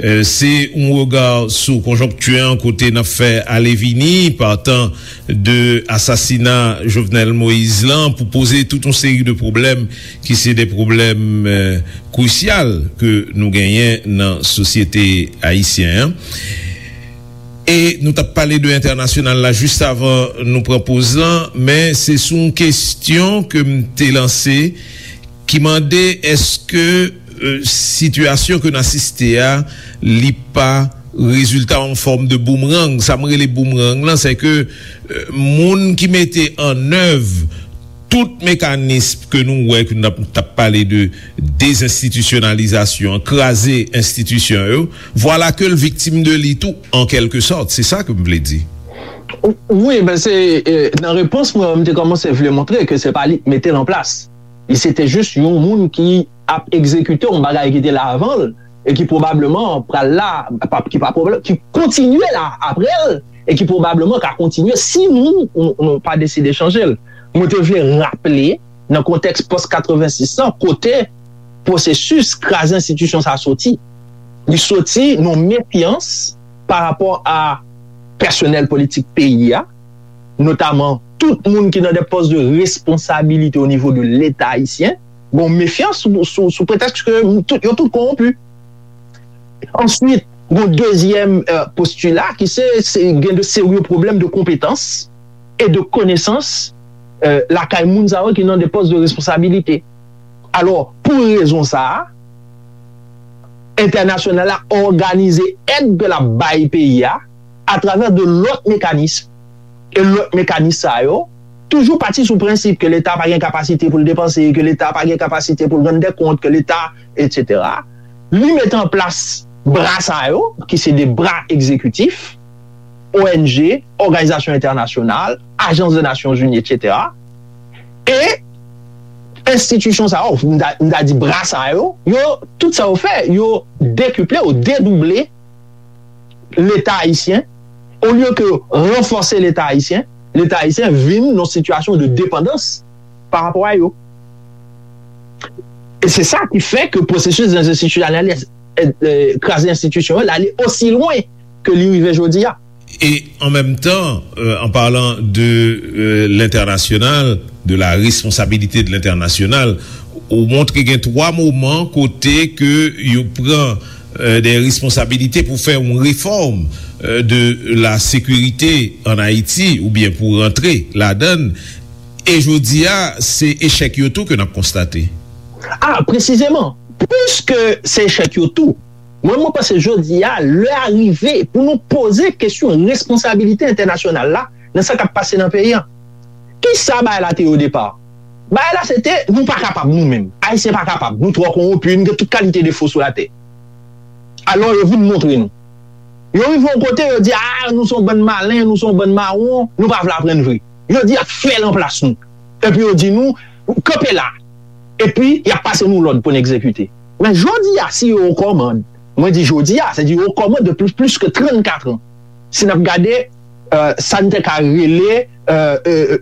Euh, se yon rega sou konjonkti an kote n ap fè ale vini, patan de asasina Jovenel Moïse lan, pou poze tout yon seri de pwoblèm ki se de pwoblèm, euh, krisyal ke nou genyen nan sosyete ayisyen an. E nou t ap pale de entènasyonal la jis avan nou pran poz lan, men se sou yon kesyon ke m te lanse ki mande èske, euh, sitiyasyon ke n asiste a, li pa rezilta yon fòm de boumerang. Sa m rele boumerang lan, se ke, euh, moun ki mete an èv tout mekanis ke nou wè, ke n ap, t ap pale de dezenstitisyonalizasyon, kraze enstitisyon yo, vwala ke l viktim de li tou, an kèlke sòt. Se sa ke m vle di. Wi, ben se, eh, nan repons mwen, m te kòmanse vle montre ke se pa li k mete l an plas. Li se te jis yon moun ki ap egzekite yon bagay ki te la avan l e ki pwobableman pral la, pa, ki pa pwoblèm, ki kontinye la apre l e ki pwobableman ka kontinye si nou, nou, nou pa deside chanje l. Mwen te vle raple, nan kontèks pòs katrevensis lan, kote pwosesis kraze enstitisyon sa soti. Li soti nan mefyans pa rapò a pèsonèl politik peyi a, notaman tout moun ki nan de pòs de responsabilite o nivo de Leta ayisyen, gon mefyans sou, sou, sou pretèks ke tout, yo tout kowonpi. Answit, gon dezyèm, euh, postila ki se, se gen de serye pwoblèm de konpetans e de konesans, euh, lakay moun sa yo ki nan de pòs de responsabilite. Alò, pou rezon sa a, entènasyonal la òganize èd ke l ap bay peyi a atravè de lòt mekanis. E lòt mekanis sa yo toujou pati sou prensip ke Leta pa gen kapasite pou l depanse, ke Leta pa gen kapasite pou l rann dè kont, ke Leta, etsetera. Li mete an plas bra sa yo, ki se de bra egzekitif, O N G, òganizasyon entènasyonal, ajans de Nasyonzini, etsetera. E enstitisyon sa yo, m ta, m ta di bra sa yo, yo, tout sa yo fè, yo dekiple, yo dedouble Leta ayisyen, olye ke ranfòse Leta ayisyen, Leta ayisyen vin nan sitiyasyon de depandans pa rapò a yo. E se sa ki fè ke pwosesis dezenstitisyonalize, e, e, kraze enstitisyon yo, l ale osi lwen ke li rive jodi a. E an menm tan, euh, en parlant de euh, l'international, de la responsabilité de l'international, ou montre gen twa moman kote ke yo pran euh, de responsabilite pou fè yon refòm euh, de la sekirite an Ayiti oubyen pou rantre ladan l. E jodi a, se echèk yo tou ke n ap konstate. A, presizeman, piske se echèk yo tou, mwen, mwen panse jodi a, lè a rive pou nou poze kesyon responsabilite entènasyonal la nan sa k ap pase nan peyi an. Kisa bagay la te ye o depa? Bagay la se te, nou pa kapab nou menm. Ayisyen pa kapab. Nou twò kowonpi, nou gen tout kalite defo sou latè. Alò, yo vin montre nou. Yo rive yon kote, yo di, a, nou se yon bann malen, nou se yon bann mawon, nou pa vle aprann vre. Yo di y ap fè l anplas nou. Epi yo di nou, kanpe la. Epi, y ap pase nou lòd pou n egzekite. Men jodi a, si yo o kòmand, mwen di jodi a, se di yo o kòmand depi plis ke trannkat an. Si n ap gade euh, sa n te ka rele euh, euh,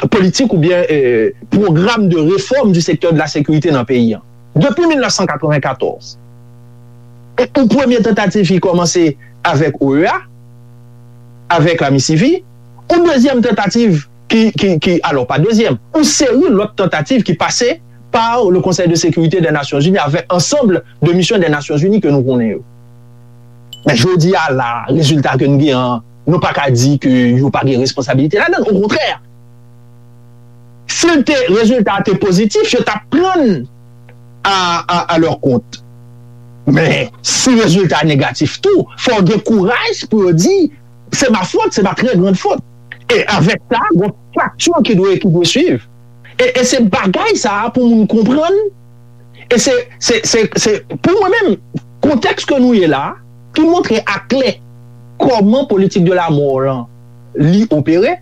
politik oubyen euh, pwogram de réforme du secteur de la sécurité nan peyi an. Depi mil nèf san katrevenkatòz, e yon premye tantativ ki kòmanse avèk O E A, avèk Amisivi, yon dezyèm tantativ ki, ki, ki, alò pa dezyèm, yon seri lòt tantativ ki pase par le Conseil de sécurité des Nations Unies avec ensemble de missions des Nations Unies ke nou konnen yo. Men jodi a la, rezilta ke n gen an, nou pa ka di ke yo pa gen responsabilite ladan l. Okontrè, si l te, rezilta a te pozitif, yo t ap pran l a, a, a lè kont. Men, si rezilta a negatif tou, fò w gen kouraj pou yo di, se ma fwot, se ma trè grand fwot. E avèk sa, gon fakti ki dwe, ki dwe swiv. E, e se bagay sa a pou moun konprann. E se, se, se, se pou mwen menm, kontèks ke nou ye la, ki montre aklè kòman politik de la mò lan li opere,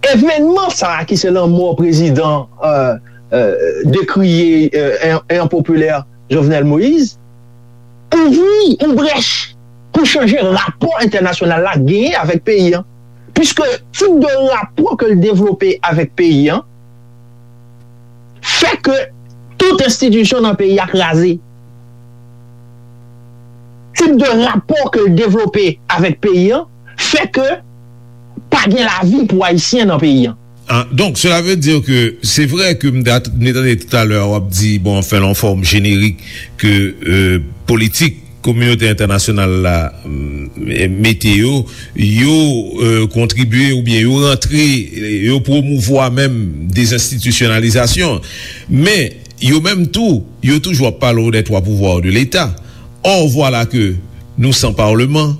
evènman sa a ki se lanmò prezidan euh, euh, dekriye euh, e enpopilè Jovenel Moïse, ouvri yon brèch pou chanje rapò entènasyonal la genyen avèk peyi an. Piske tip de rapò ke l devlope avèk peyi an fè ke tout enstitisyon nan peyi a kraze. Tip de rapò ke l devlope avèk peyi an fè ke pa gen lavi pou Ayisyen nan peyi an. Ah, donc, cela veut dire que c'est vrai que m te tande talè w ap di, bon, anfen, yon fòm jenerik ke euh, politik kominote entènasyonal la mm, mete yo, yo euh, kontribye oubyen yo rantre, yo pwomouvwa menm dezenstitisyonalizasyon. Men, yo menm tou, yo toujou ap pale w des trois pouvoirs de l'État. Or, voilà que nous sans parlement,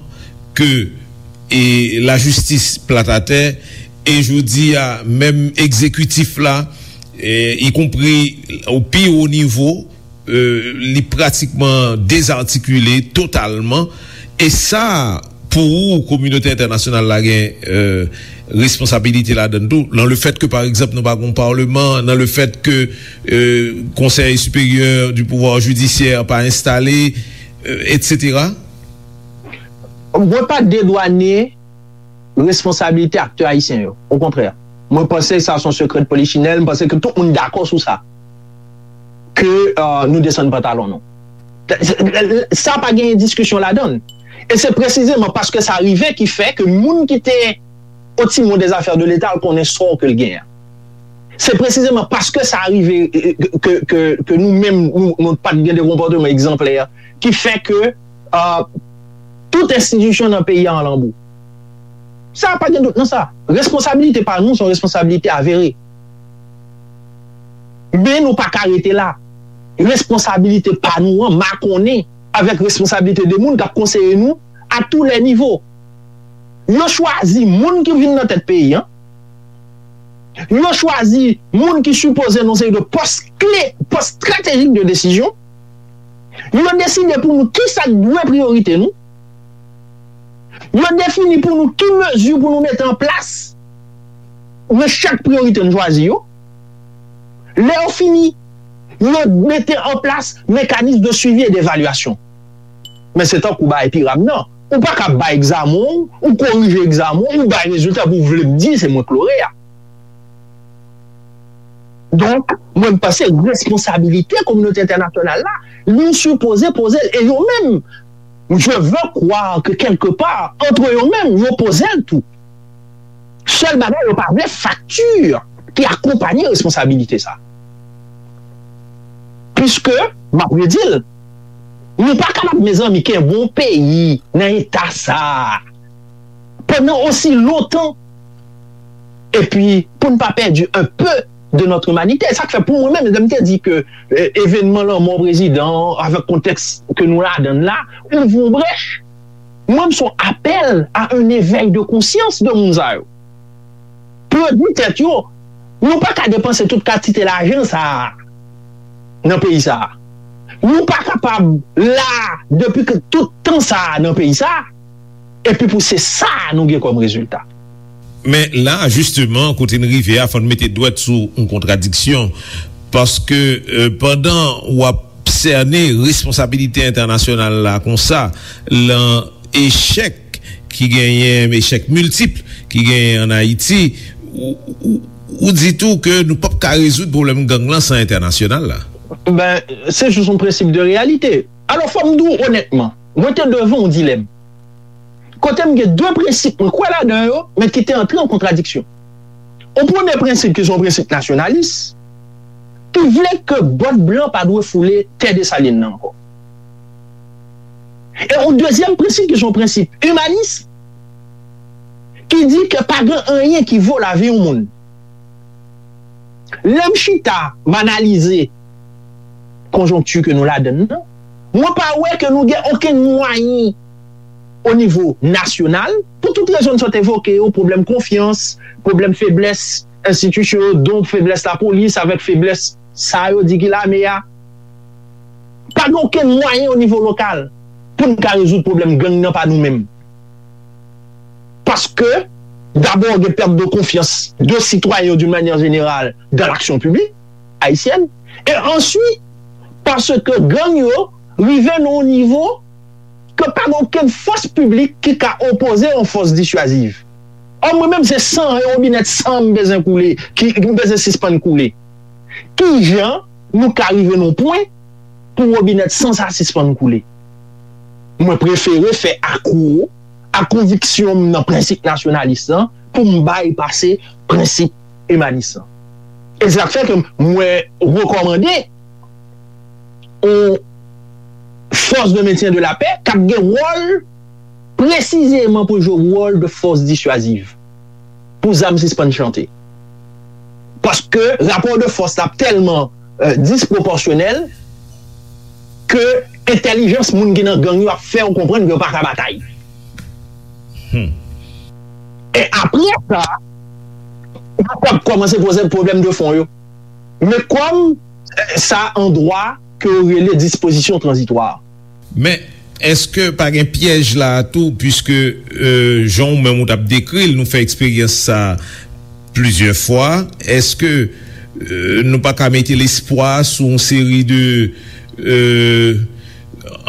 que e lajistis plat atè, e jodi a, menm egzekitif la, e, ikonpri o pi wo nivo, e, li pratikman dezatikile totalman. E sa, pou ou, kominote entènasyonal la gen e, responsabilite ladan tou, nan le fèt ke, pa egzanp, nou pa gen yon palman, nan le fèt ke e, Konsèy Siperyè di Pouvwa Jidisyè pa enstale, e, etsetera. Mwen pa dedwane responsabilite aktè ayisyen yo. Okontrè, mwen panse sa se yon sekrè de polichinèl, mwen panse ke tout moun dakò sou sa. Ke euh, nou desann pantalon nou. Sa pa gen diskisyon ladan l. E se presizeman paske sa rive ki fè ke moun ki te au timon des affaires de l'État al konnen sò ke l genyen. Se presizeman paske sa rive ke, ke, ke nou menm nou, nou pa t gen de konpòteman egzanplè ki fè ke uh, tout enstitisyon nan peyi a an lanbou. Sa pa gen dout nan sa. Responsabilite pa nou se yon responsabilite avere. Men nou pa ka rete la. Responsabilite pa nou an makonnen avèk responsabilite de moun k ap konseye nou a tou lè nivo. Yo chwazi moun ki vin nan tèt peyi an. Yo chwazi moun ki sipoze nan seri de pòs kle, pòs estratejik de desizyon. Yo deside pou nou kisa k dwe priyorite nou. Yo defini pou nou ki mezi pou nou mete an plas nan chak priyorite n chwazi yo. Lè yo fini, yo mete an plas mekanis de swivi e devalyasyon. Men se tankou bagay piram nan. Ou pa ka bay egzamen w, ou korije egzamen w, ou bay rezilta pou w vle m di se mwen k loreya. Donk, mwen m panse responsabilite kominote entènasyonal la, nou sipoze poze l, e yo menm, je veux croire que quelque part, entre yo menm, yo poze l tou. Sèl bagay, yo pa vle fakti ki akonpanye responsabilite sa. Piske, m ap redi l, nou pa kapab, mezanmi, kenbe yon peyi nan eta sa a pandan osi lontan, epi pou n pa pèdi un peu de notre humanité. Sa k fè pou mwen menm, lè m te di ke eh, evenman lanmò prezidan an, avèk kontèks ke nou ladan l la, ouvri yon brèch. Mwen, m se yon apèl a un éveil de conscience de moun sa yo. Pou yo di tèt yo, nou pa ka depanse tout kantite lajan sa a nan peyi sa a. Nou pa kapab la depi ke tout tan sa a nan peyi sa a, epi pou se sa a nou gen kòm rezilta. Men la, jisteman, kote n rive a, fò n mete dwèt sou yon kontradiksyon. Paske, eh, pandan w ap sène responsabilite entènasyonal la konsa, lan echèk ki genyen, echèk miltip ki genyen ann Ayiti, ou, ou, ou di tou ke nou p ap ka rezoud pwoblèm gang lan san entènasyonal la. Ben, se jis yon prensip de reyalite. Alò, fò m di w onètman, mwen te devan yon dilèm. Kote m gen de prensip mwen kwè ladan yo, men ki te antre an kontradiksyon. Yon premye prensip ki se yon prensip nasyonalis, ki vle ke bòt blan pa dwe foule tè Desalin nan ankò. E yon dezyèm prensip ki se yon prensip imanis, ki di ke pa gen anyen ki vo lavi yon moun. Lè m chita, m analize konjonkti ke nou ladan l nan, mwen pa wè ke nou gen okenn mwayen o nivo nasyonal, pou tout rezon n sot evoke yo, pwoblèm konfyans, pwoblèm feblès enstitisyon yo, donk feblès lapolis avèk feblès sa yo di ki lame a. Pa gen okenn mwayen o nivo lokal pou n ka rezoud pwoblèm gang nan pa nou menm. Paske, dabò, gen pèt de konfyans de sitwayen yo d'une manière générale dans l'action publique haïtienne. E answit, paske gang yo rive nan yon nivo ke pa gen okenn fòs piblik ki ka opoze yon fòs disyaziv. Ò, mwen menm, se san, yon wobinèt san m bezwen koule, ki m bezwen sispann koule. Kijan nou ka rive nan yon pwen pou wobinèt san sa sispann koule? Mwen prefere fè akwo a konviksyon m nan prensip nasyonalis lan pou m bay pase prensip imanis lan. E se sa k fè ke mwen rekòmande yon force de maintien de la paix k ap gen wòl presizeman pou jwe wòl de force dissuasive pou zam sispann chante. Paske rapò de fòs la ap tèlman eh, disproporsyonèl ke entèlijans moun ki nan gang yo ap fè w konprann ke yo pa ka batay. E apre sa, yo ap kòmanse poze pwoblèm de fon yo. Men kòm eh, sa an dwa ke yo rele dispozisyon tranzitwa. Men, èske pa gen pyèj la a tou, piske eh, jan w menm ou t ap dekri l, nou fè eksperyans sa plizyè fwa, èske eh, nou pa ka mete lespwa sou yon seri de eh,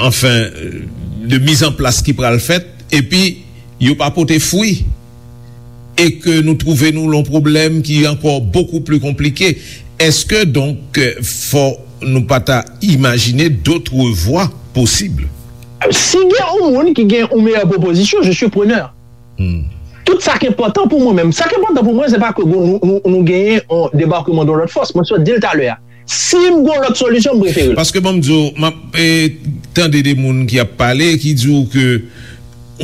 anfen, de mizanplas ki pral fèt, epi yo pa pote fwi, e ke nou twouve nou lan yon pwoblèm ki ankò bokou pli konplike? Èske donk fò nou pa ta imajine dotre vwa posib? Si gen yon moun ki gen yon meyè pwopozisyon, je suis preneur. Tout sa k enpòtan pou mwen menm. Sa k enpòtan pou mwen, se pa ke nou, nou, nou genyen yon debakman de lòt fòs. Mwen sot di l talè a. Si m gen lòt solisyon, m prefere l. Paske ban m di w, m ap eh, tande de moun ki ap pale, ki di w ke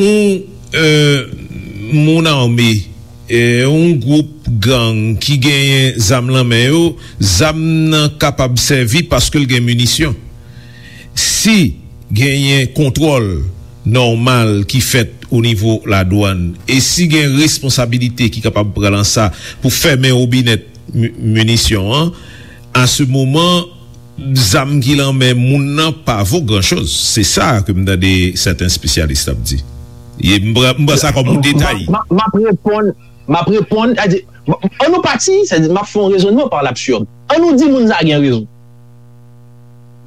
yon eh, moun ame, eh, yon gwoup gang ki genyen zam lan men yo, zam nan kapab sèvi paske l gen minisyon. Si genyen kontwòl nòmal ki fèt o nivo ladwann e si gen responsabilite ki kapab pran nan sa pou fèmen wobinèt mi- minisyon an, a se moman zam ki lan men moun nan pa vo gran choz. Se sa ke m tande sèten espesyalis ap di. E m pran m pran sa kòm yon detay. M ap reponn, m ap reponn, an nou pati, m ap fè yon rezonnman pa labsird. An nou di moun sa gen rezon.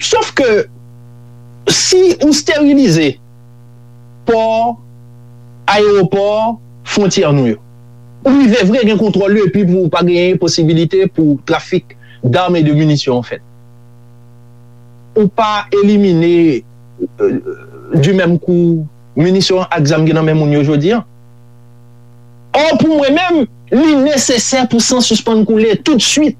Sof ke si ou sterilize pò, ayewopò, fwontyè nou yo. Ou rive vre gen kontwòl yo epi pou pa genyen posibilite pou trafik dam e de minisyon an fèt. Ou pa elimine, euh, du même coup, minisyon ak zam ki nan men moun yo jodi an. Or, pou mwen menm, li nesesè pou san sispann koule tout swit.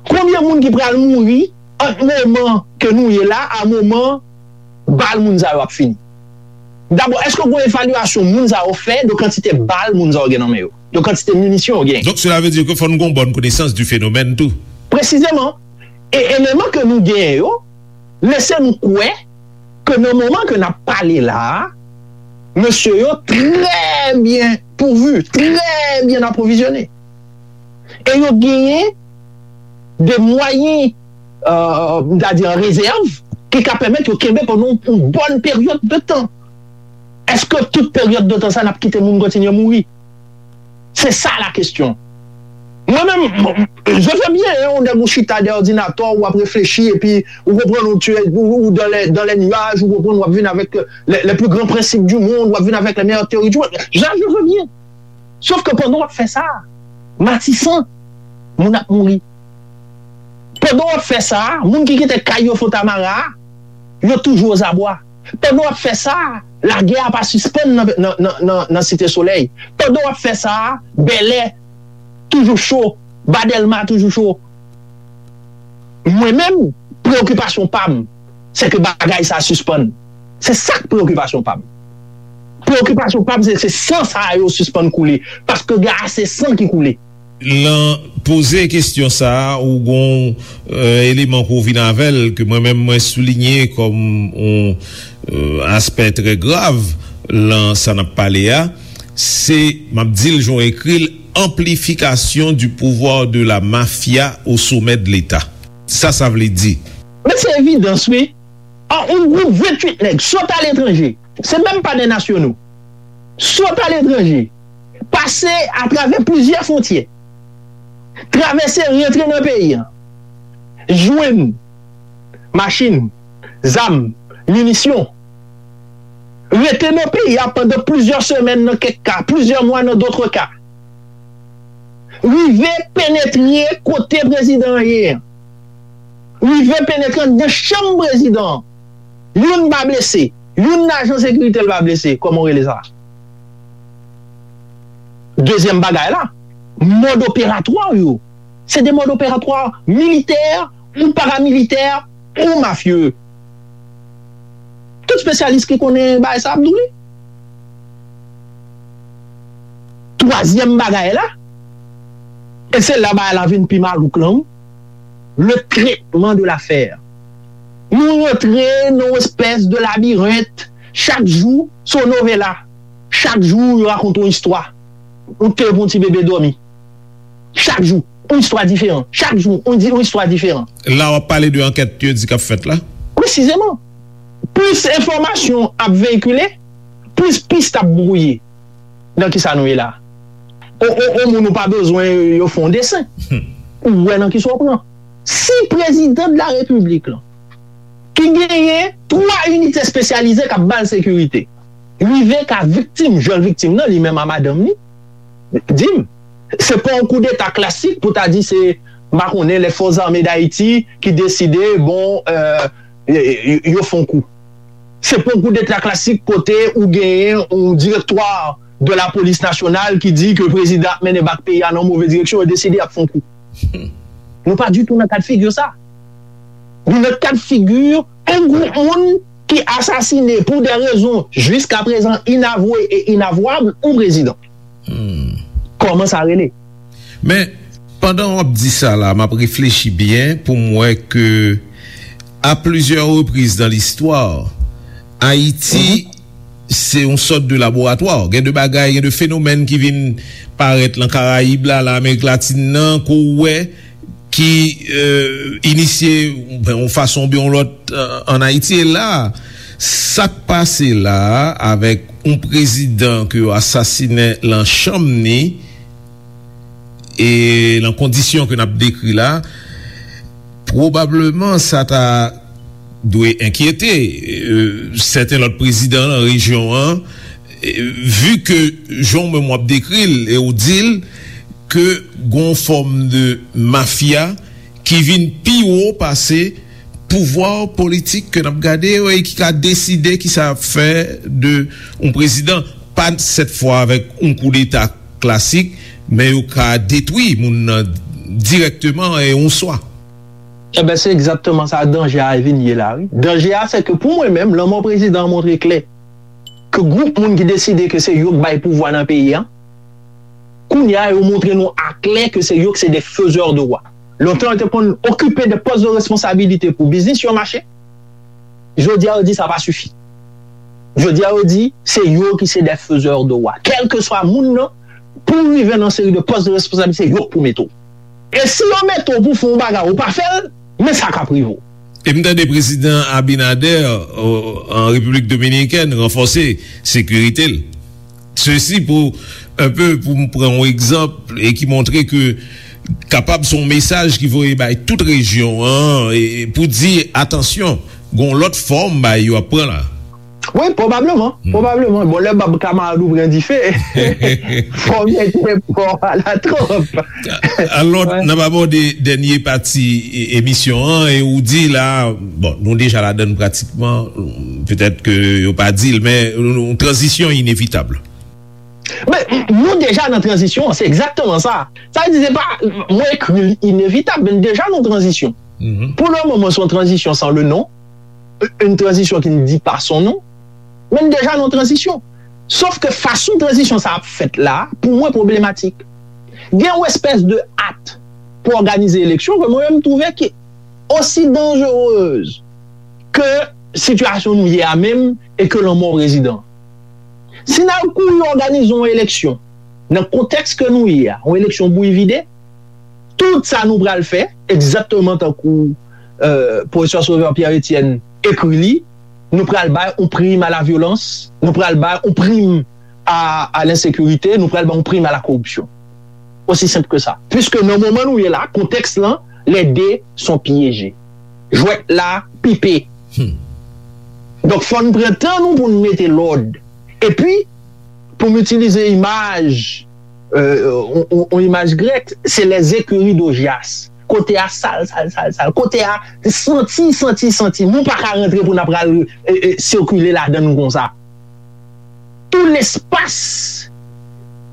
Konbyen moun ki pral mouri ant moman ke nou ye la a moman bal moun sa yo ap fini? Dabò, èske w gen evalyasyon moun sa yo fè de kantite bal moun sa yo gen nan men yo, de kantite minisyon yo gen? Donc, cela veut dire que fò nou gen yon bonne connaissance du phénomène tou. Presizeman, e eleman ke nou genyen yo lese nou kwè ke nan moman ke n ap pale la a, mesye yo trè byen pouvu, trè byen apwovizyone. E yo genyen de mwayen, euh, m ta di an rezèv, ki ka pèmèt yo kenbe pandan yon bòn peryòd de tan. Èske tout peryòd de tan sa n ap kite moun kontinye mouri? Se sa la kesyon. Mwen menm, je veux bien, hein, yon nèg ou chita dèyè òdinatè w, w ap reflechi, epi ou konprann ou, tu es, ou, ou dans les, dans les nuages, ou konprann w ap vin avèk les, les plus grands principes du monde, w ap vin avèk les meilleures théories du monde. Ja, je veux bien. Sòf ke pandan w ap fè sa, Matisan, moun ap mouri. Pandan w ap fè sa, moun ki kite kay yo Fontamara, yo toujou ozabwa. Pandan w ap fè sa, lagè a pa sispann nan, nan, nan, nan, nan Site Solèy. Pandan w ap fè sa, Bèlè toujou cho, ba Dèlma toujou cho. Mwen menm, preyokipasyon pa m, se ke bagay sa sispann. Se sa k preyokipasyon pa m. Preyokipasyon pa m, se, se san sa yo sispann koule. Paske gen ase san ki koule. Lan poze kesyon sa a, ou gon, euh, eleman ke w vin avè l, ke mwen menm mwen soulinye kòm yon, euh, aspè trè grav lan sa n ap pale a, se, m ap di l jan w ekri l, amplification du pouvoir de la mafia au sommet de l'État. Sa sa vle di? Men se evidans, wi. An, yon gwoup venntuit nèg sot aletranje, se menm pa de nasyonal, sot aletranje, pase atravè plizyè fwontyè, travèse, rantre nan peyi an, jwenn machin, zam, minisyon, rete nan peyi a pandan plizyè semèn nan kèk ka, plizyè mwa nan dòt ka, rive penetre kote prezidan an ye an, rive penetre anndan chanm prezidan an. Youn pa blese, youn nan ajan sekirite l pa blese, kòman w rele sa? Dezyèm bagay la, mòd operatwa yo, se de mòd operatwa militè ou paramilitè ou mafye. Tout espesyalis ki konnen bagay sa ap di w li. Twazyèm bagay la, e se la bagay la vin pi malouk lan, le traitement de l'affaire. Nou rantre nan yon espès de labirent, chak jou se yon novela, chak jou yo rakonte yon istwa. Ou te pou yon ti bebe dòmi. Chak jou, yon istwa diferan. Chak jou, yon di, yon istwa diferan. La w ap pale de ankèt yo di k ap fèt la? Presizeman. Plis enfòmasyon ap veyikile, plis pis ap bwouye. Nan kisa nou ye la? O, o, o moun ou pa bezwen yo fè yon desen. Ou wè nan kisa w pran. Si prezidan de la repiblik lan, ki genyen twa inite espesyalize k ap ba l sekirite, rive ka viktim, jwenn viktim nan, li menm a madanm li, di m, se pa yon koudeta klasik pou ta di se, m pa konnen, les forces armées d'Haïti ki deside, bon, euh, y- y- yo fè yon kou. Se pa yon koudeta klasik kote ou genyen yon direktwa de la polis nasyonal ki di ke prezidan ap mennen bak peyi a nan move direksyon, yo deside y ap fè yon kou. Nou pa ditou nan kad figi sa. Nou nan kad figi yon gwoup moun ki asasine pou de rezon jiskaprezan inavwe e inavwab yon prezidan. Kòman sa rele? Men, pandan w ap di sa la, m ap reflechi byen pou m wè ke, a plizyè repriz nan listwa, Ayiti se yon sòt de laboratwa. Gen de bagay, gen de fenomèn ki vin parèt lan Karayib la, lan Amerik Latin nan, ke w wè ki, euh, inisye, ben, yon fason oubyen yon lòt, euh, ann Ayiti. E la, sa k pase la a, avèk yon prezidan ke yo asasinen lan chanm ni, e lan kondisyon ke n ap dekri la, pwobableman sa ta dwe enkyete, e, sèten lòt prezidan nan rejyon an, e, vi ke jan w menm w ap dekri l e w di l ke gon fòm de mafya ki vin pi wo pase pouvwa politik ke n ap gade yo e ki ka deside kisa y ap fè de yon prezidan, pa sèt fwa avèk yon koudeta klasik, men yo ka detwi moun nan dirèkteman e yon swa. Ebyen, se egzakteman sa danje a vin ye la, wi. Danje a, se ke pou mwen menm, lanmò prezidan an montre klè ke gwoup moun ki deside ke se yo k bay pouvwa nan peyi a, kounye a, yo montre nou aklè ke se yo ki se de fezè de wa. Lontan, yo te konn okipe de pòs de responsabilite pou biznis yo mache. Jodi a, yo di sa pa sifi. Jodi a, yo di se yo ki se de fezè de wa. Kèlkeswa moun nan, pou w rive nan seri de pòs de responsabilite, se yo k pou mete w. E si yo mete w pou fè yon bagay, ou pa fè l, men sa k ap rive w. E m tande prezidan Abinader, o, an Repiblik Dominikèn, ranfòse sekirite l. Sesi pou, enpe, pou m pran yon egzanp e ki montre ke kapab se yon mesaj ki voye bay tout rejyon an, e, e pou di, atansyon, gon lòt fòm bay yo ap pran la. Wi, pwobableman, pwobableman. Bon, lè bab kamarad ou pran dife, fò w mete pò a la twòp. Alò, n ap abòde dènye pati e, emisyon an, e ou di la, bon, nou deja ladann pratikman, petèt ke yo pa di l, men yon tranzisyon inevitab. Men, nou deja nan tranzisyon an, se egzakteman sa. Sa vle di, se pa, mwen ekri l inevitab, men deja nan tranzisyon. Pou le moman, se yon tranzisyon san le non, yon tranzisyon ki n di pa son non, men n deja nan tranzisyon. Sof ke fason tranzisyon sa ap fèt la, pou mwen pwoblematik. Gen yon espès de at pou òganize eleksyon ke mwen menm m twouve ki osi danjerez ke sitiyasyon nou ye a menm e ke lanmò prezidan. Si n al kouri òganize yon eleksyon nan kontèks ke nou ye a, yon eleksyon bouyi vide, tout sa nou pral fè, egzakteman tankou, euh, pwofesè Sauveur Pierre Etienne ekri li, nou pral bay yon prim a la vyolans, nou pral bay yon prim a, a lensekirite, nou pral bay yon prim a la koripsyon. Osi senp ke sa. Piske nan moman nou ye la, kontèks lan, les deux sont piégés. Jwèt la pipe. Donk, fò n pran tan nou pou n mete lòd. Epi, pou m itilize imaj, euh, on, on, on imaj grèk, se les écuries d'Augias. Kote a sal, sal, sal, sal. Kote a santi, santi, santi. Nou pa ka rantre pou n ap pral, e, e, sikile ladan l konsa. Tout lespas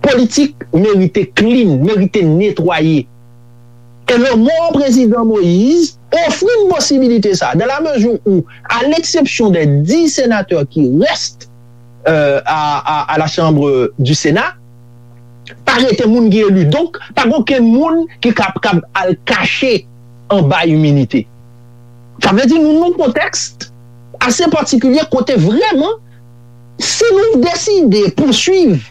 politik merite clean, merite netwaye. E lanmò prezidan Moïse ofri n posibilite sa, dans la mesure où, à l'exception des dix sénateurs qui restent, euh, à, à, à la Chambre du Sénat, pa rete moun ki eli. Donk, pa gen okenn moun ki kab, kab al kache anba iminite. Sa vle di nou nan yon kontèks ase patikilye kote vrèman, si nou deside pouswiv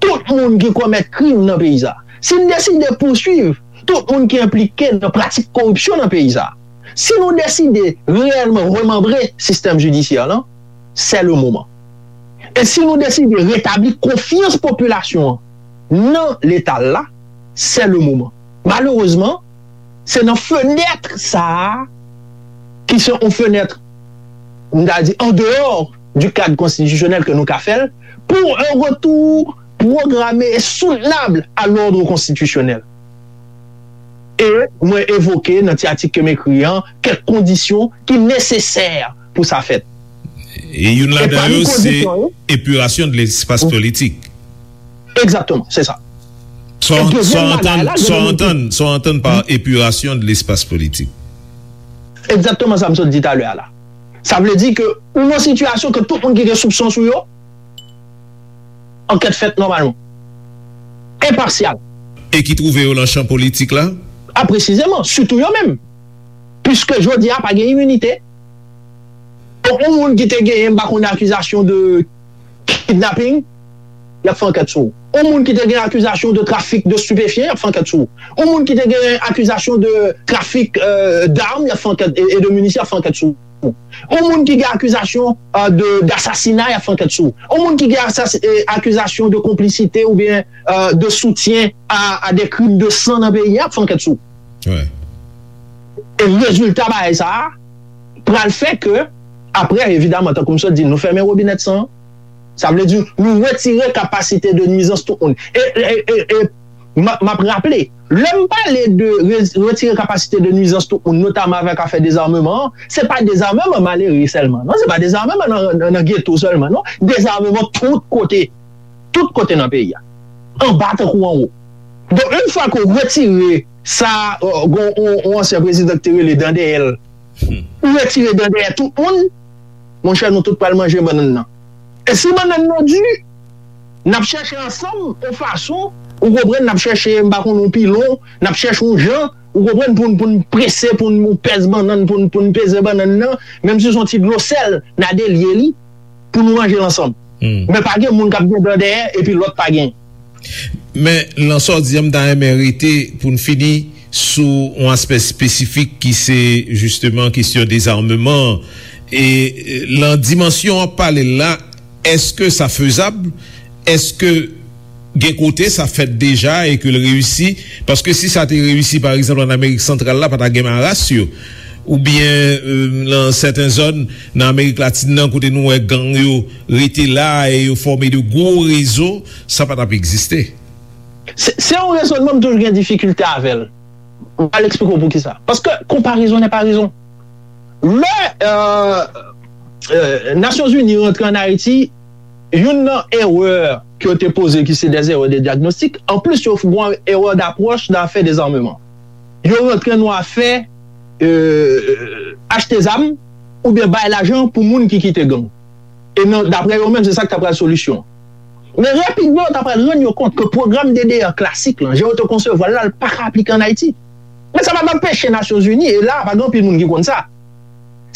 tout moun ki komèt krim nan peyi sa, si n deside pouswiv tout moun ki enplike nan pratik koripsyon nan peyi sa, si nou deside reyèlman remanbre sistèm jidisyè lan, c'est le moment. E si nou deside retabli konfyans popilasyon an nan Leta l la, c'est le moment. Malerezman, se nan fenèt sa a, ki se yon fenèt, m ta di, en dehors du cadre constitutionnel ke nou ka fè l, pour un retour programmé et soutenable à l'ordre constitutionnel. E mwen evoke nan ti atik ke m ekri an kèk kondisyon ki nesesè pou sa fèt. E youn ladan yo, se epirasyon de lespas politik. Egzakteman, se sa. Sa w antann, sa w antann, sa w antann pa epirasyon de lespas politik. Egzakteman sa m sot di talè a la. Sa vle di ke ou nan sitiyasyon ke tout moun ki gen soupson sou yo, ankèt fèt nòmalman. Enpasyal. E ki twouve yo nan chan politik la? A, presizeman, sitou yo menm. Piske jodi a pa gen iminite. Donk, yon moun ki te genyen, m pa konnen, akizasyon de kidnapping, y ap fè ankèt sou ou. Yon moun ki te gen akizasyon de trafik de stupéfiants, y ap fè ankèt sou ou. Yon moun ki te gen akizasyon de trafik, euh, d'armes, y ap fè ankèt, e, e de minisyon, y ap fè ankèt sou ou. Yon moun ki gen akizasyon, euh, de, d'assassinat, y ap fè ankèt sou ou. Yon moun ki gen asas-, e, akizasyon de konplisite oubyen, euh, de soutien à, à des crimes de sang nan peyi a, y ap fè ankèt sou ou. E rezilta bagay sa a, pral fè ke, apre, evidaman, tankou m sot di, nou fèmen wobinèt san an. Sa vle di, nou retire kapasite de nwizans tout moun. E, e, e, e m ap, m ap raple, lè m pale de re-, retire kapasite de nwizans tout moun, notaman avèk afè dezameman an, se pa dezameman malere sèlman, non, se pa dezameman nan, nan, nan geto sèlman, non, dezameman tout kote, tout kote nan peyi a, anba tankou anwo. Donk, yon fwa ke w retire sa, euh, gon, on, on ansyen prezidan ki te rele dan dèyè l, ou retire dan dèyè tout moun, monchè, nou tout pral manje bannann nan. E si bannann nan di, n ap chèche ansanm yon fason, ou konprann, n ap chèche, m pa konn, yon pilon, n ap chèche yon jan, ou konprann, pou n, pou n prese, pou n pèse bannann, pou n, pou n peze bannann nan, menm si se yon ti dlo sèl, n a delye li, pou nou manje l ansanm. Men pa gen moun k ap gen dan dèyè, epi lòt pa gen. Men, nan sa w di an, m ta renmen rete pou n fini sou yon aspè espesifik ki se, jisteman, kesyon dezameman an. E, e, nan dimansyon w ap pale l la, èske sa fezab? Èske gen kote sa fèt deja e ke l reyisi? Paske si sa te reyisi, pa egzanp, ann Amerik Santral la, pa ta gen maras yo. Oubyen, e, nan sèten zòn, nan Amerik Latin nan, kote nou wè gang yo rete la e yo fòme de gwo rezo, sa pa t ap egziste. Se, se yon rezònman m toujou gen difikilte avè l. M pral eksplike w poukisa. Paske konparezon nè pa rezon. Lè, euh, euh, Nasyonzini rantre ann Ayiti, youn nan erè ke yo te poze ki se des erreurs de diagnostic, anplis yo fè yon erè d'approche nan afè dezameman. Yo rantre nan afè, euh, achte zam oubyen bay lajan pou moun ki kite gang. E nan, daprè yo menm, se sa k ta pral solisyon. Men rapidman, yo ta pral rann yo kont ke pwogram D D R klasik lan, jan yo te konsevwa l la, l pa ka aplike ann Ayiti. Men sa pa t anpeche Nasyonzini, e la, pa gen anpil moun ki konn sa.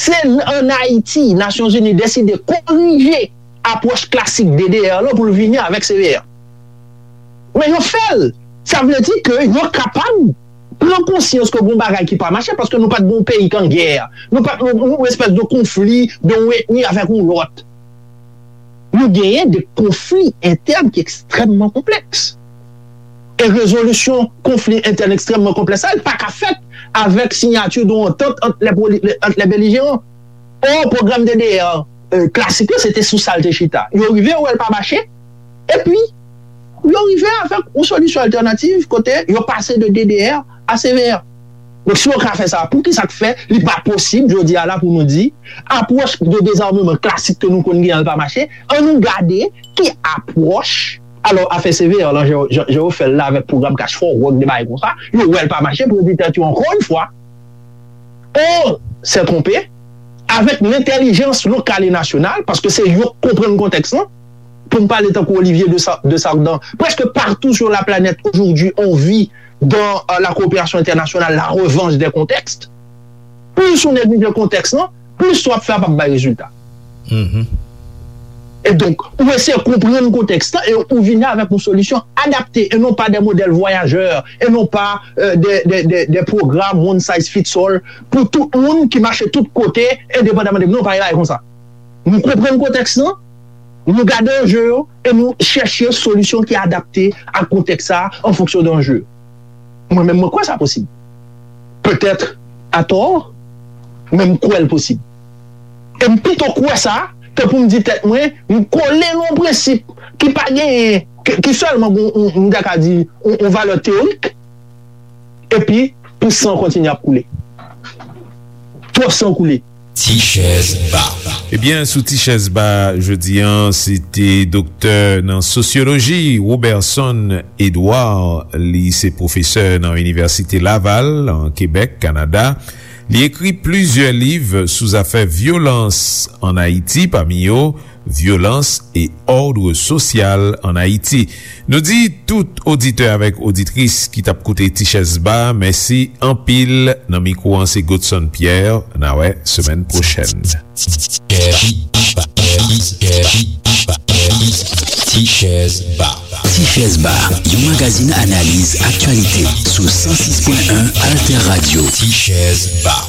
Se ann Ayiti, Nasyonzini deside korije apwòch klasik D D R lan pou l vini avèk C V R. Men yo fè l. Sa vle di ke yo kapab pran konsyans ke gon bagay ki pa mache, paske nou pa t gon peyi k an gè. Nou pa t, nou, nou espès de konfli de yon etni avèk yon lòt. Nou genyen de konfli entèn ki ekstrèmman konplèks. E rezolisyon konfli entèn ekstrèmman konplèks sa, li pa ka fèt avèk siyati de yon antant ant lè poli-, ant lè belijeran. Or, pwogram D D R, euh, klasik la, se te sou sa l te chita. Yo rive, yo wè l pa mache, epi yo rive avèk yon solisyon altènativ kote yo pase de D D R a C V R. Donk, si yo ka fè sa, poukisa k fè li pa posib, jodi a la, pou nou di, apwòch de dezameman klasik ke nou konn gen an, l pa mache? Ann nou gade ki apwòch. Alò, afè C V R lan, jan, jan, jan yo fè l la avèk pwogram Cash for Work, de bagay konsa, yo wè l pa mache, pou yo di tèt yo, ankò yon fwa, on s'est trompé, avèk lentèlijans lokal e nasyonal, paske se yo k konprann kontèks lan. Pou m pale tankou Olivier de Sa-, de Sardan, presque partout sur la planète aujourd'hui, on vit dans, euh, la coopération internationale, la revanche des contextes. Plis ou neglije kontèks lan, plis sa w ap fè a p ap bay rezilta. E donk, ou eseye konprann kontèks lan e ou vini avèk yon solisyon adapte e non pa de modèl vwayajè e non pa, euh, de, de, de, de pwogram one size fits all pou tout moun ki mache tout kote endepandaman de, non, pa gen bagay konsa. Nou konprann kontèks lan, nou gade anje yo e nou chèche solisyon ki adapte ak kontèks sa a an fonksyon de anje yo. Mwen menm, mwen kwè sa posib. Petèt atò, men m kwè l posib. E m pito kwè sa ke pou m di tèt mwen, m kole nan yon prensip ki pa genyen, ki, ki sèlman gon, m ta ka di, yon, yon valè teyorik, epi pou san kontinye ap koule. Twòp san koule. Ti chèz ba. Ebyen, sou Ti chèz ba jodi a, se te doktè nan sosyoloji, Roberson Edouard. Li se pwofesè nan Inivèsite Laval, an Kebèk, Kanada. Li ekri plizyè liv sou zafè vyolans ann Ayiti, pami yo Violence et ordre social en Haïti. Nou di tout oditè avèk oditris ki t ap koute Ti Chèz Ba, mèsi anpil. Nan mikwo an, se Godson Pierre. N a wè semèn pwochèn. Ti Chèz Ba. Ti Chèz Ba, yon magazin analiz aktyalite sou san sis pwen en Alter Radio. Ti Chèz Ba.